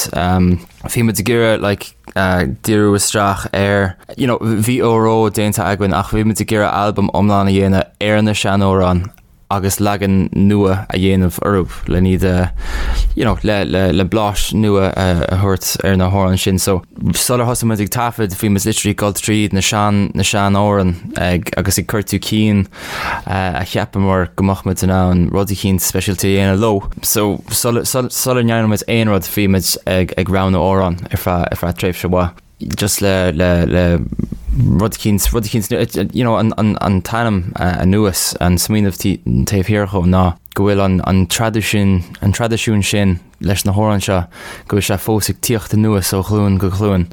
Bhí muid ag iarraidh like díriú isteach ar, you know, bhí Óró déanta againn ach bhí muid ag iarraidh albam iomlán a dhéanamh ar na seanamhráin agus leagan nua a dhéanamh orthu le iad a you know le le le blás nua a thabhairt ar na hamhráin sin. So sular thosaigh muid ag taifead bhí muid literally ag dul tríd na sean na seanamhráin ag agus ag cuartú cinn a cheapamar go mbeadh muid in ann rud eicínt speisialta a dhéanamh leo. So sula sula ndearna muid aon rud bhí muid ag ag roghnú amhrán ar feadh ar feadh tréimhse mhaith. just le le le rud eicínt rud eicínt you know an an an t-ainm anuas an smaoineamh taobh thiar dhó ná go bhfuil an an traidisiún an traidisiún sin leis na hamhráin seo go bhfuil sé fós ag tíocht anuas ó ghlúin go glúin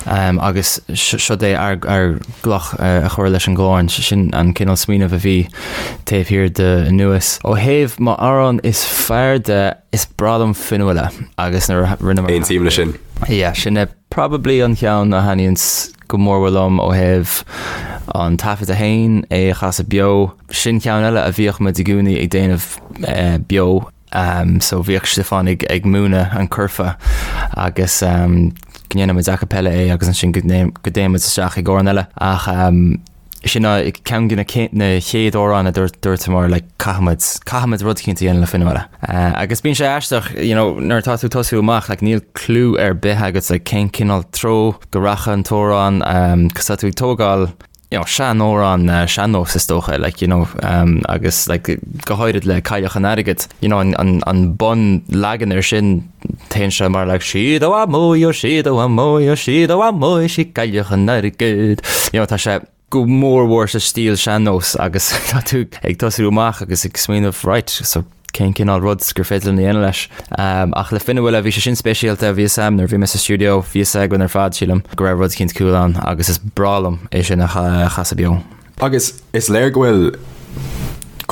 um, agus seo é ár ár gcloch a chur leis an gclann sin an cineál smaoineamh a bhí taobh thiar de anuas. Ó thaobh m'amhrán is fearr de is breá liom Fionnuala agus nuair a rinneamar Aontaím leis sin. Yeah, sin é Probably an cheann a thaitníonns go mór liom ó thaobh an taifeadta féin, é a chasadh beo. Sin ceann eile a bhíodh muid i gcónaí ag déanamh beo. So bhíodh Stiofán ag ag múineadh an curfá agus go ndéanadh muid a cappella é agus ansin go dtéann muid isteach ag amhrán eile. Ach sin ceann de na chéad amhráin a dúirt like caithfimid, caithfimid rud eicínt a dhéanamh le Fionnuala. Agus bíonn sé aisteach, you know, nuair atá tú ag tosú amach, like níl clue ar bith agat like cén cineál treo go rachaidh an t-amhrán, cos tá tú ag tógáil, you know, seanamhrán, sean-nós is dócha, like, you know, agus like go háirid le Cailleach an Airgid, you know, an, an, an bun leagan ar sin, Téann sé mar like sí do mhaimó, sí do mhaimó, sí do mhaimó, sí cailleach an airgid. You know, tá sé go mór mhór sa stíl sean-nós agus tá tú ag tosú amach agus ag smaoineamh right, so cén cineál rud gur féidir linn a dhéanamh leis. Um, ach le Fionnuala bhí sé sin speisialta, bhí a fhios agam nuair bhí mé sa stiúideo, bhí a fhios againn ar fad sílim go raibh rud eicínt cool ann agus is breá liom é sin a chasadh beo. Agus is léir go bhfuil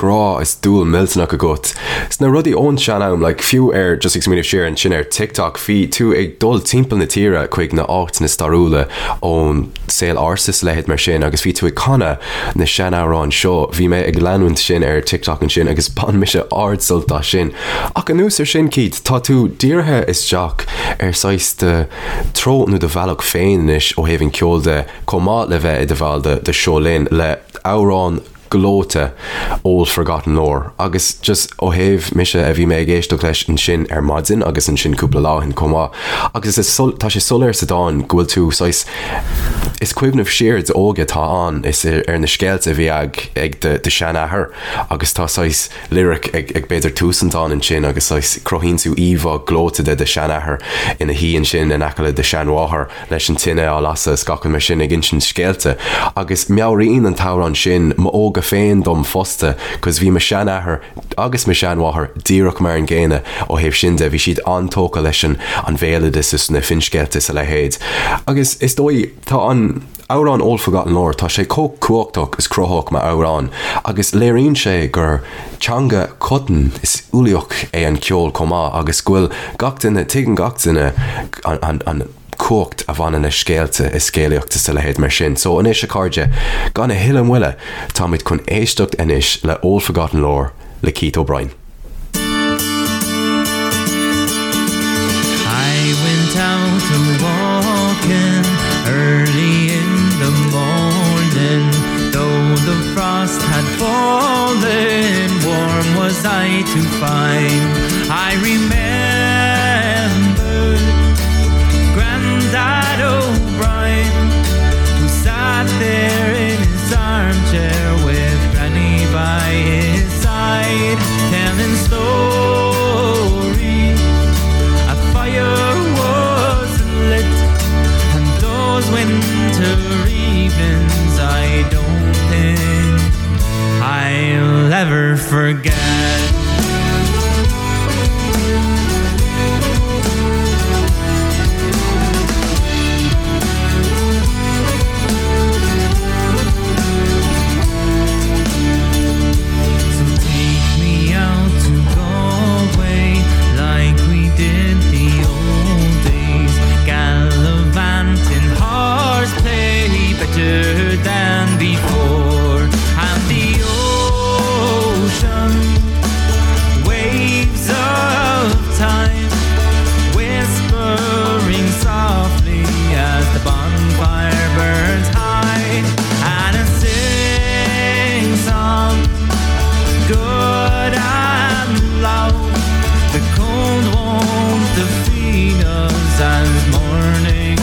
grá is dúil millteanach agat sna rudaí ón sean-am, like fiú ar, just ag smaoineamh siar ansin ar TikTok, bhí tú ag dul timpeall na tíre chuig na áiteanna stairiúla ón saol ársa is a leithéid mar sin agus bhí tú ag canadh na seanamhráin seo, bhí mé ag leanúint sin ar TikTok ansin agus bhain mise ard-sult as sin. Ach anuas ar sin, Keith, tá tú dírithe isteach ar saghas do treo nó do bhealach féin anois ó thaobh an ceoil de, chomh maith le bheith i do bhall de de Seo Linn le amhrán gleoite Old Forgotten Lore agus just ó thaobh mise a bhí mé ag éisteacht leis ansin ar maidin agus ansin cúpla lá ó shin chomh maith agus is tá sé soiléir sa dán go bhfuil tú saghas is cuimhneamh siar d'óige atá ann is ar na scéalta a bhí ag ag do do sheanathair agus tá saghas lyric ag ag b'fhéidir tús an dáin ansin agus saghas cruthaíonn tú íomhá gleoite de do sheanathair ina shuí ansin in aice le do sheanmháthair leis an tine á lasadh is gach rud mar sin ag insint scéalta agus meabhraíonn an t-amhrán sin m'óige féin dom fosta 'cause bhí mo sheanathair agus mo sheanmháthair díreach mar an gcéanna ó thaobh sin de, bhí siad an-tógtha leis an an bhéaloideas is na finscéalta is a leithéid agus is dóigh tá an. Amhrán Old Forgotten Lore, tá sé chomh cumhachtach is cruthaitheach mar amhrán agus léiríonn sé gur teanga choiteann is uilíoch é an ceol chomh maith agus go bhfuil gach duine, tuigeann gach duine an cumhacht a bhaineann le scéalta is scéalaíocht is a leithéid mar sin. So anois a chairde, gan a thuilleadh moille, táimid chun éisteacht anois le Old Forgotten Lore le Keith O'Brien. I went out a walking early in the morning Though the frost had fallen, warm was I to find I remembered Grandad O'Brien Who sat there in his armchair with Granny by his side Telling stories A fire was lit And those winter evenings I don't think I'll ever forget. So take me out to Galway like we did the old days Gallivanting horseplay better than before And the ocean waves of time Whispering softly as the bonfire burns high And I sing song good and loud The cold won't defeat us as morning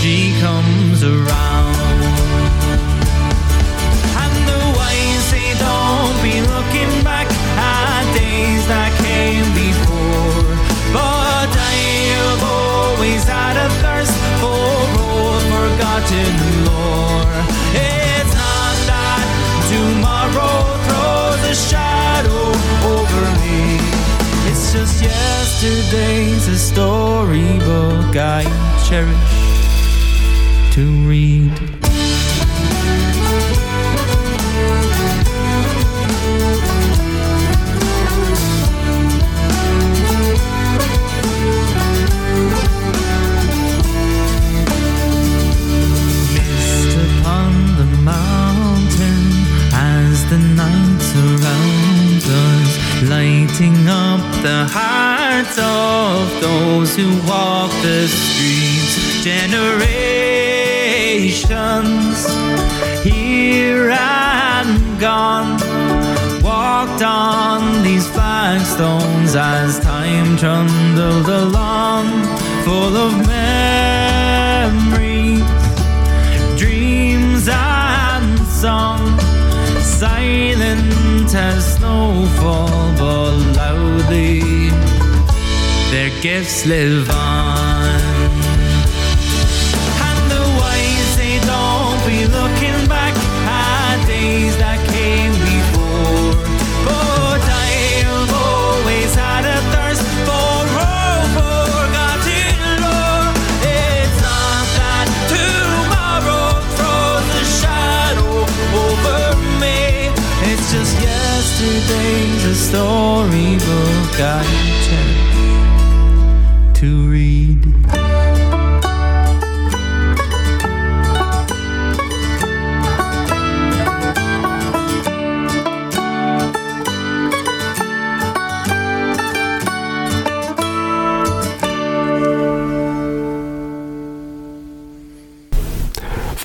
she comes around And the wise say don't be looking back at days that came before But I've always had a thirst for old forgotten lore It's not that tomorrow throws a shadow over me It's just yesterday's a storybook I cherish to read. Mist upon the mountain as the night surrounds us, lighting up the hearts of those who walk the streets. Generations here and gone walked on these flagstones as time trundled along, full of memories, dreams and song, silent as snowfall, but loudly their gifts live on. And the wise say don't be looking back at days that came before. But I've always had a thirst for old forgotten lore. It's not that tomorrow throws a shadow over me. It's just yesterday's a storybook I cherish to read.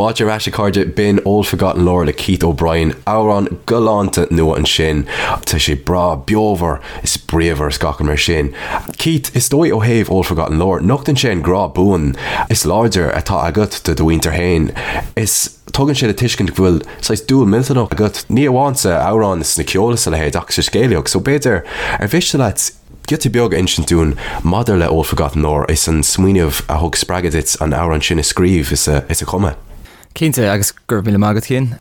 Fáilte ar ais a chairde, b'in Old Forgotten Lore le Keith O'Brien, amhrán galánta nua ansin. Tá sé breá beomhar is bríomhar is gach rud mar sin. Keith, is dóigh ó thaobh Old Forgotten Lore, nochtann sé an grá buan is láidir atá agat do do mhuintir féin. Is tugann sé le tuiscint go bhfuil saghas dúil millteanach agat, ní amháin sa amhrán is sna ceol is a leithéid ach sa scéalaíocht. So b'fhéidir, ar mhiste leat giota beag a insint dúinn maidir le Old Forgotten Lore is an smaoineamh a thug spreagadh duit an amhrán sin a scríobh is a chumadh? Cinnte, agus go raibh míle maith agat Cian.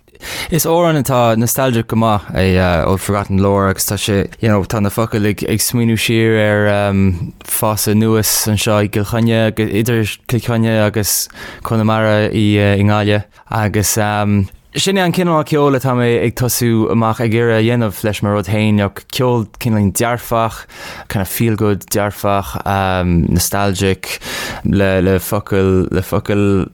Is amhrán atá nostalgic go maith é Old Forgotten Lore agus tá sé, you know, tá na focail ag, ag smaoineamh siar ar um, fás anuas anseo i gCill Chainnigh, idir Cill Chainnigh agus Conamara i, uh, i nGaillimh agus um, sin é an cineál ceoil atá mé ag tosú amach ag iarraidh a dhéanamh leis mo rud féin, you know, ceol cineál dearfach, kind of feel good dearfach, um, nostalgic le, le focail, le focail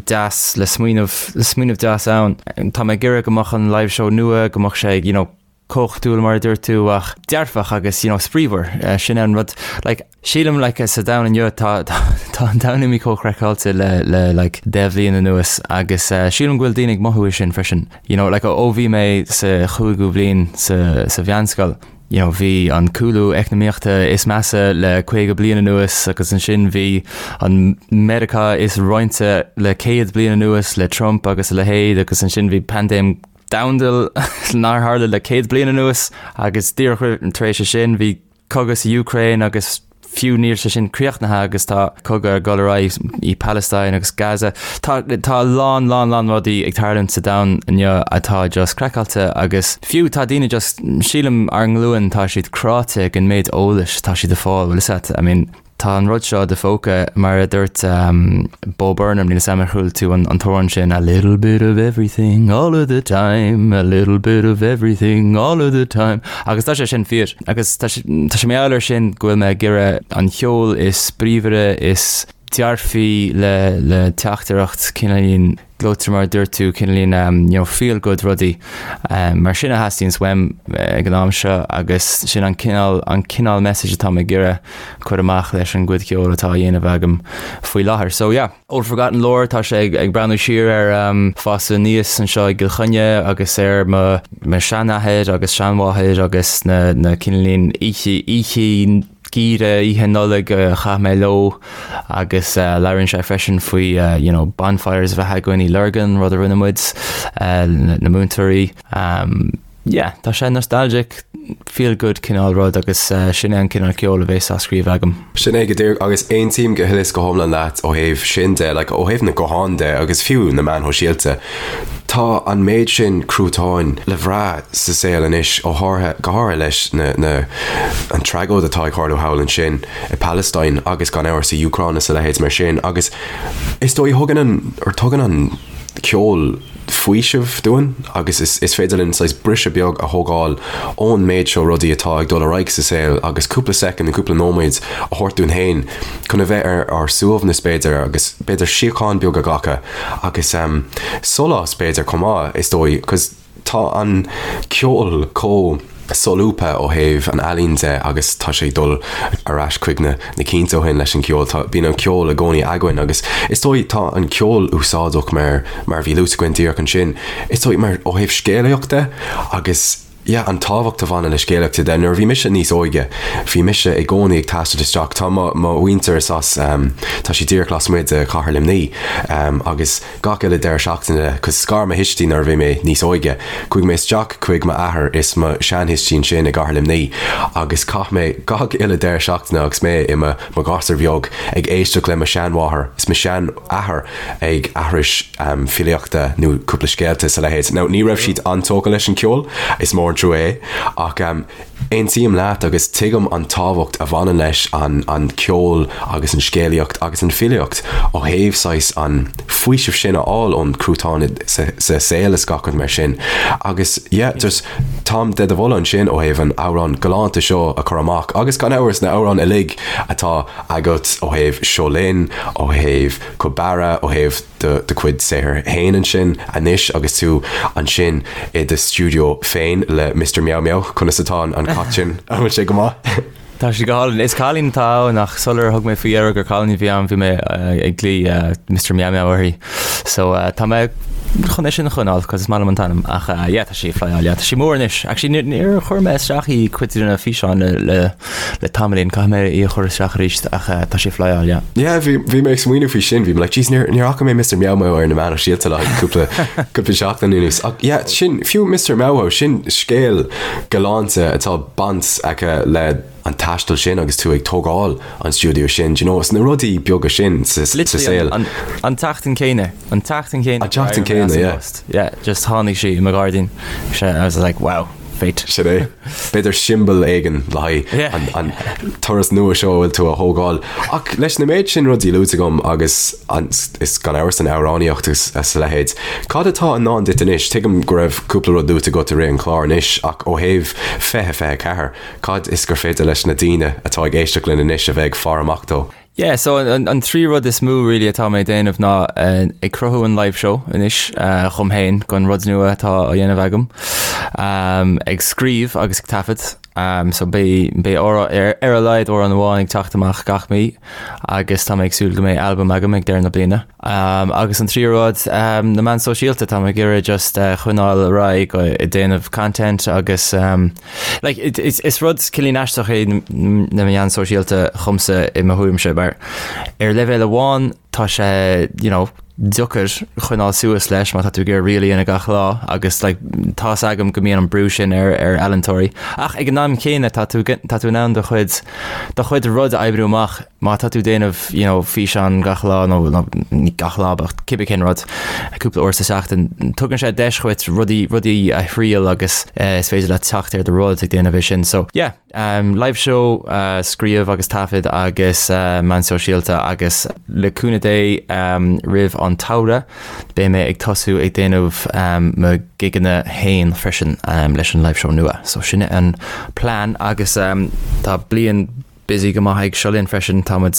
deas le smaoineamh, le smaoineamh deas ann. Tá mé ag iarraidh go mbeadh an live show nua, go mbeadh sé, you know, cumhachtúil mar a dúirt tú ach dearfach agus, you know, spraíúil. Sin é an rud, like, sílim, like, sa domhan inniu tá, tá, tá an domhan imithe chomh craiceáilte le, le, like, 10 bhliain anuas agus sílim go bhfuil daoine ag mothú é sin freisin. You know, like, ó bhí mé sa chúigiú bhliain sa, sa mheánscoil, you know, bhí an cúlú eacnamaíochta is measa le 50 bliain anuas agus ansin bhí an Meiriceá is roinnte le 100 bliain anuas le Trump agus a leithéid agus ansin bhí paindéim domhanda nár tharla le 100 bliain anuas agus díreach tar éis sin bhí cogadh sa Úcráin agus fiú níl sé sin críochnaithe agus tá cogadh ag dul ar aghaidh i Palestine agus Gaza. Tá tá a lán lán lán rudaí ag tarlúint sa domhan inniu atá just craiceáilte agus fiú tá daoine just sílim ár nglúin tá siad cráite ag an méid eolais atá siad ag fáil bhfuil a fhios agat I mean tá an rud seo i do phóca mar a dúirt um, Bo Burnham níl a fhios agam ar chuala tú an, an t-amhrán sin a little bit of everything all of the time a little bit of everything all of the time agus tá sé sin fíor. Agus tá sé mar gheall air sin go bhfuil mé ag iarraidh an cheol is spraíúla, is dearfaí le le teachtaireacht cineáilín gleoite mar a dúirt tú, cineáilín you know feel good rudaí. Mar sin a theastaíonns uaim ag an am seo agus sin an cineál an cineál message atá mé ag iarraidh cur amach leis an gcuid ceoil atá á dhéanamh agam faoi láthair. So yeah. Old Forgotten Lore, tá sé ag breathnú siar ar fás aníos anseo i gCill Chainnigh agus ar mo seanathair agus seanmháthair agus na na cineáilín oíche oíche geimhridh, oíche Nollag a chaith mé leo agus labhraíonn sé freisin faoi you know bonfires a bheith againn i Lurgan, rud a rinne muid, na múinteoirí. Yeah, tá sé nostalgic, feel good cineál rud agus sin é an cineál ceoil a bhéas á scríobh agam. Sin é go díreach agus aontaím go huile is go hiomlán leat ó thaobh sin de, like ó thaobh na gutháin de agus fiú na meáin shóisialta. Tá an méid sin cruatáin le bhrath sa saol anois ó háirithe, go háirithe leis na, na, an tragóid atá ag tarlú thall ansin i Palestine agus gan amhras sa Úcráin is a leithéid mar sin agus is dóigh thugann an, or tugann an ceol faoiseamh dúinn agus is féidir linn saghas briseadh beag a thógáil ón méid seo rudaí atá ag dul ar aghaidh sa saol agus cúpla soicind nó cúpla nóiméad a thabhairt dúinn féin chun a bheith ar ár suaimhneas b'fhéidir agus b'fhéidir síocháin beag a ghlacadh agus sólás b'fhéidir chomh maith is dóigh 'cause Tá an ceol chomh solúbtha ó thaobh an ealaín de agus tá sé ag dul ar ais chuig na na cianta ó shin leis an gceol. Tá, bíonn an ceol i gcónaí againn agus is dóigh tá an ceol úsáideach mar mar a bhí luaite againn díreach ansin. Is dóigh mar ó thaobh scéalaíocht de agus yeah an tábhacht a bhaineann le scéalaíocht de. Nuair a bhí mise níos óige bhí mise i gcónaí ag taisteal isteach, tá mo mo mhuintir is as tá siad díreach lasmuigh de chathair Luimnigh agus Gach uile deireadh seachtaine, 'cause scar mo thuistí nuair a bhí mé níos óige, chuaigh mé isteach chuig m'athair is mo sheanthuistí ansin i gcathair Luimnigh agus chaith mé gach uile deireadh seachtaine agus mé i mo mo ghasúr bheag ag éisteacht le mo sheanmháthair is mo sheanathair ag aithris filíochta nó cúpla scéalta is a leithéid. Now ní raibh siad an-tógtha leis an ceol, is mór an trua é, ach Aontaím leat agus tuigim an tábhacht a bhaineann leis an an ceol agus an scéalaíocht agus an filíocht ó thaobh saghas an faoiseamh sin a fháil ón cruatán sa sa saol is gach rud mar sin. Agus yeah just táim de do mholadh ansin ó thaobh an amhrán galánta seo a chur amach agus gan amhras na amhráin uilig atá agat ó thaobh Seo Linn, ó thaobh Col Barra, ó thaobh do do chuid saothair féin ansin anois agus tú ansin i do stiúideo féin le Mister Meow Meow. Conas atá an cat sin? An bhfuil sé go maith? Tá sé go hálainn. Is cailín atá ann ach sular thug mé faoi deara gur cailín a bhí ann bhí mé ag glaoch Mister Meow Meow uirthi. So tá mé chun é sin a choinneáil cos is maith liom an t-ainm ach yeah tá sí ag flyáil yeah tá sí mór anois. Actually níor chuir mé isteach í cuid de na físeáin le le le tamaillín, caithfidh mé í a chur isteach arís ach tá sí ag flyáil, yeah. Yeah, bhí, bhí mé ag smaoineamh faoi sin, bhí mé like, jeez, níor, níor fhaca mé Mr. Meow Meow ar na meáin shóisialta le haghaidh cúpla, cúpla seachtain anuas. Ach yeah, sin, fiú Mr. Meow Meow, sin scéal galánta atá baint aici le. an taisteal sin agus tú ag tógáil an stiúideo sin, do you know, is na rudaí beaga sin sa saol. An tseachtain céanna, an tseachtain céanna. An tseachtain céanna, yeah. Yeah, just tháinig sí i mo ghairdín. I was like, wow. Fate. Sin é. B'fhéidir siombail éigin le haghaidh an turas nua seo a bhfuil tú a thógáil. Ach leis na méid sin rudaí luaite agam agus is gan amhras an amhránaíocht agus a leithéid, cad atá i ndán duit anois? Tuigim go raibh cúpla rud luaite agat i rith an chláir anois ach ó thaobh 2024, cad is gur féidir leis na daoine atá ag éisteacht linn anois a bheith ag faire amach dó? Yeah, so an an trí rud is mó really atá mé ag déanamh ná ag cruthú an live show anois dhom féin don rud nua atá á dhéanamh agam, ag scríobh agus ag taifead, so beidh beidh ar ar a laghad amhrán amháin ag teacht amach gach mí agus tá mé ag súil go mbeidh albam agam ag deireadh na bliana. Agus an tríú rud, na meáin sóisialta, tá mé ag iarraidh just coinneáil ar aghaidh ag déanamh content agus like is rud cineál aisteach é na meáin sóisialta dhomsa i mo thuairimse mar ar leibhéal amháin tá sé you know deacair coinneáil suas leis má tá tú ag iarraidh reel a dhéanamh gach lá agus like tá's agam go mbíonn an brú sin ar ar ealaíontóirí ach ag an am céanna tá tú tá tú in ann do chuid do chuid rud a oibriú amach Má tá tú ag déanamh you know físeán gach lá nó nó ní gach lá but cibé cén rud, cúpla uair sa seachtain, tugann sé deis dhuit rudaí rudaí a thriail agus eh, is féidir leat teacht ar do rud ag déanamh é sin. So yeah, um, live show, uh, scríobh agus taifead agus uh, meáin sóisialta agus le cúnamh Dé um, roimh an tsamhradh beidh mé ag tosú ag déanamh um, mo gigeanna féin freisin um, leis an live show nua. So sin an plean agus um, tá bliain busy go maith ag Seo Linn freisin. Tá muid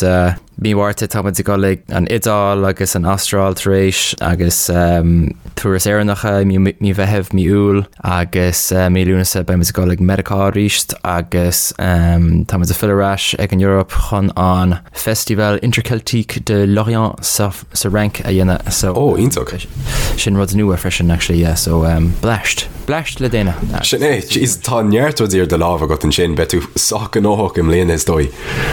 mí Mhárta tá muid ag dul ag an Iodáil agus an Astráil tar éis agus turas Éireannach i mí Mheithimh, mí Iúil agus mí Lúnasa beidh muid ag dul ag Meiriceá arís agus tá muid ag filleadh ar ais ag an Eoraip chun an Festival Interceltique de Lorient sa sa Fhrainc a dhéanamh so Ó, iontach. Sin rud nua freisin actually yeah so um, bleaist. Bleaist le déanamh. Sin é, jeez, tá neart rudaí ar do lámh agat ansin, beidh tú sách gnóthach i mbliana is dóigh.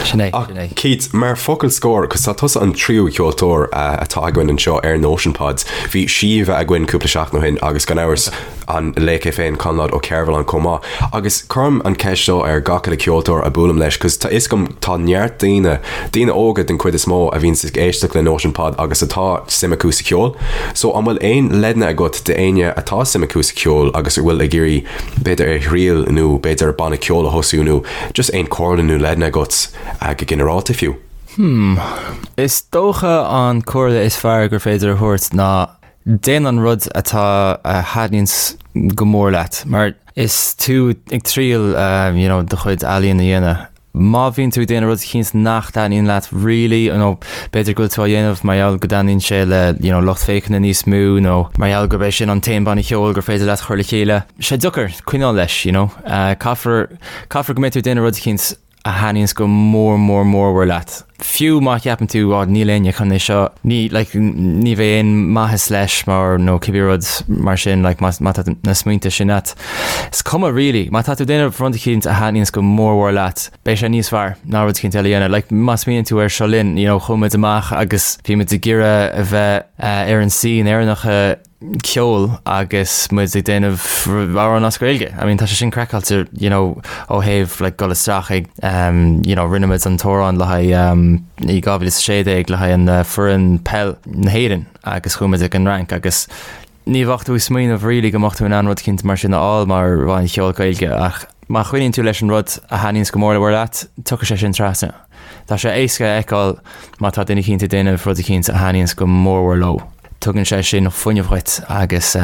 Sin é, sin é. Keith, mar focal scoir, cos tá tusa an tríú ceoltóir atá againn anseo ar Notion Pod, bhí Síomha againn cúpla seachtain ó shin agus gan amhras an laoch é féin, Conlad Ó Cearbhalláin chomh maith. Agus cuirim an ceist seo ar gach uile ceoltóir a buailim leis, cos tá fhios agam tá neart daoine, daoine óga den chuid is mó, a bhíonns ag éisteacht le Notion Pod agus atá suim acu sa cheol. So an bhfuil aon leideanna agat d'éinne atá suim acu sa cheol agus a bhfuil ag iarraidh b'fhéidir é a thriail nó b'fhéidir banna ceoil a thosú nó just aon comhairle nó leideanna agat go ginearálta fiú? Hmm. Is dócha an comhairle is fearr gur féidir a thabhairt ná Déan an rud atá a thaitníonns go mór leat, mar is tú ag triail you know do chuid ealaíon a dhéanamh. Má bhíonn tú ag déanamh rud eicínt nach dtaitníonn leat really nó b'fhéidir go bhfuil tú á dhéanamh mar gheall go dtaitníonn sé le you know lucht féachana níos mó nó mar gheall gurb é sin an t-aon banna ceoil gur féidir leat chur le chéile, sé deacair coinneáil leis you know. Caithfear caithfear go mbeidh tú ag déanamh rud eicínt a thaitníonns go mór mór mórmhór leat. Fiú má cheapann tú oh níl éinne chun é seo, ní like ní bheidh aon maitheas leis mar nó cibé rud mar sin like má má tá na smaointe sin a't. Is cuma really, má tá tú ag déanamh rud eicínt a thaitníonns go mór mhór leat, beidh sé níos fearr ná rud eicínt eile a dhéanamh. Like má smaoiníonn tú ar Seo Linn, you know chuaigh muid amach agus bhí muid ag iarraidh a bheith eh, ar an scene Éireannach ceol agus muid ag déanamh amhrán as Gaeilge. I mean tá sé sin craiceáilte you know ó thaobh like dul isteach ag um, you know rinne muid an t-amhrán le haghaidh um, i 2016 le haghaidh an uh, foireann peil na hÉireann agus chuaigh muid ag an Fhrainc agus ní bheadh tú ag smaoineamh really go mbeadh tú in ann rud eicínt mar sin a fháil mar bhanna cheoil Gaeilge ach má choinníonn tú leis an rud a thaitníonns go mór mór leat, tiocfaidh sé sin trasna. Tá sé éasca a fheiceáil má tá duine eicínt ag déanamh rud eicínt a thaitníonns go mór mhór leo. Tugann sé sin fuinneamh dhuit agus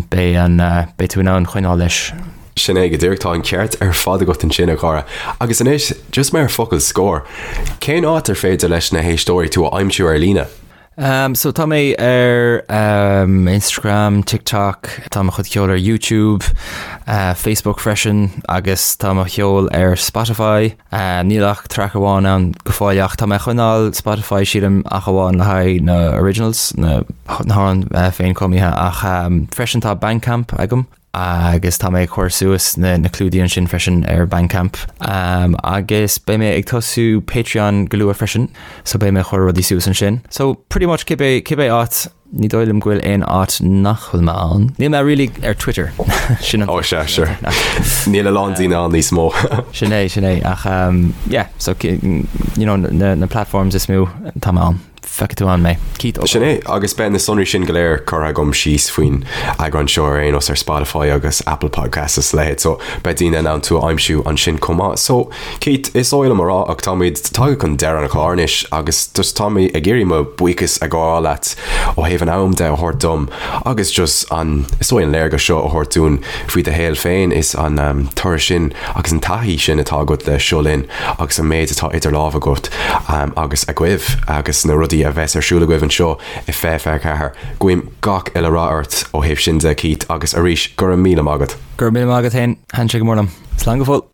beidh an, beidh tú in ann coinneáil leis. Sin é go díreach, tá an ceart ar fad agat ansin, a chara. Agus anois, just mar focal scoir, cén áit ar féidir leis na héisteoirí tú a aimsiú ar líne? Um, so tá mé ar um, Instagram, TikTok, tá mo chuid ceoil ar YouTube, uh, Facebook freisin agus tá mo cheol ar Spotify. Uh, níl ach track amháin ann go fóill ach tá mé ag coinneáil Spotify sílim ach amháin le haghaidh na originals, na, na hamhráin uh, féinchumtha ach um, freisin tá Bandcamp agam. Agus tá mé ag cur suas na na clúdaigh ansin freisin ar Bandcamp. Agus beidh mé ag tosú Patreon go luath freisin, so beidh mé ag cur rudaí suas ansin. So pretty much cibé cibé áit, ní dóigh liom go bhfuil aon áit nach bhfuil mé ann. Níl mé really ar Twitter. Sin an Ó sea, sure. Níl a lán daoine ann níos mó. Sin é, sin é. Ach yeah, so you know na na platforms is mó tá mé ann. Feicfidh tú ann mé. Keith Ó. Sin é, agus beidh na sonraí sin go léir curtha agam síos faoin eagrán seo ar aon nós ar Spotify agus Apple Podcasts is a leithéid, so beidh daoine in ann tú a aimsiú ansin chomh maith. So, Keith, is oth liom a rá ach táimid tagtha chun deireadh an chláir anois agus just tá mé ag iarraidh mo bhuíochas a ghabháil leat ó thaobh an am de a thabhairt dom agus just an, is dóigh an léargas seo a thabhairt dúinn faoi do shaol féin is an turas sin agus an taithí sin atá agat le Seo Linn agus an méid atá idir lámha agat agus agaibh agus na rudaí a bheas ar siúl agaibh anseo i 2024. Guím gach uile rath ort ó thaobh sin de, Keith, agus arís, go raibh míle maith agat. Go raibh míle maith agat féin, thaitin sé go mór liom. Slán go fóill.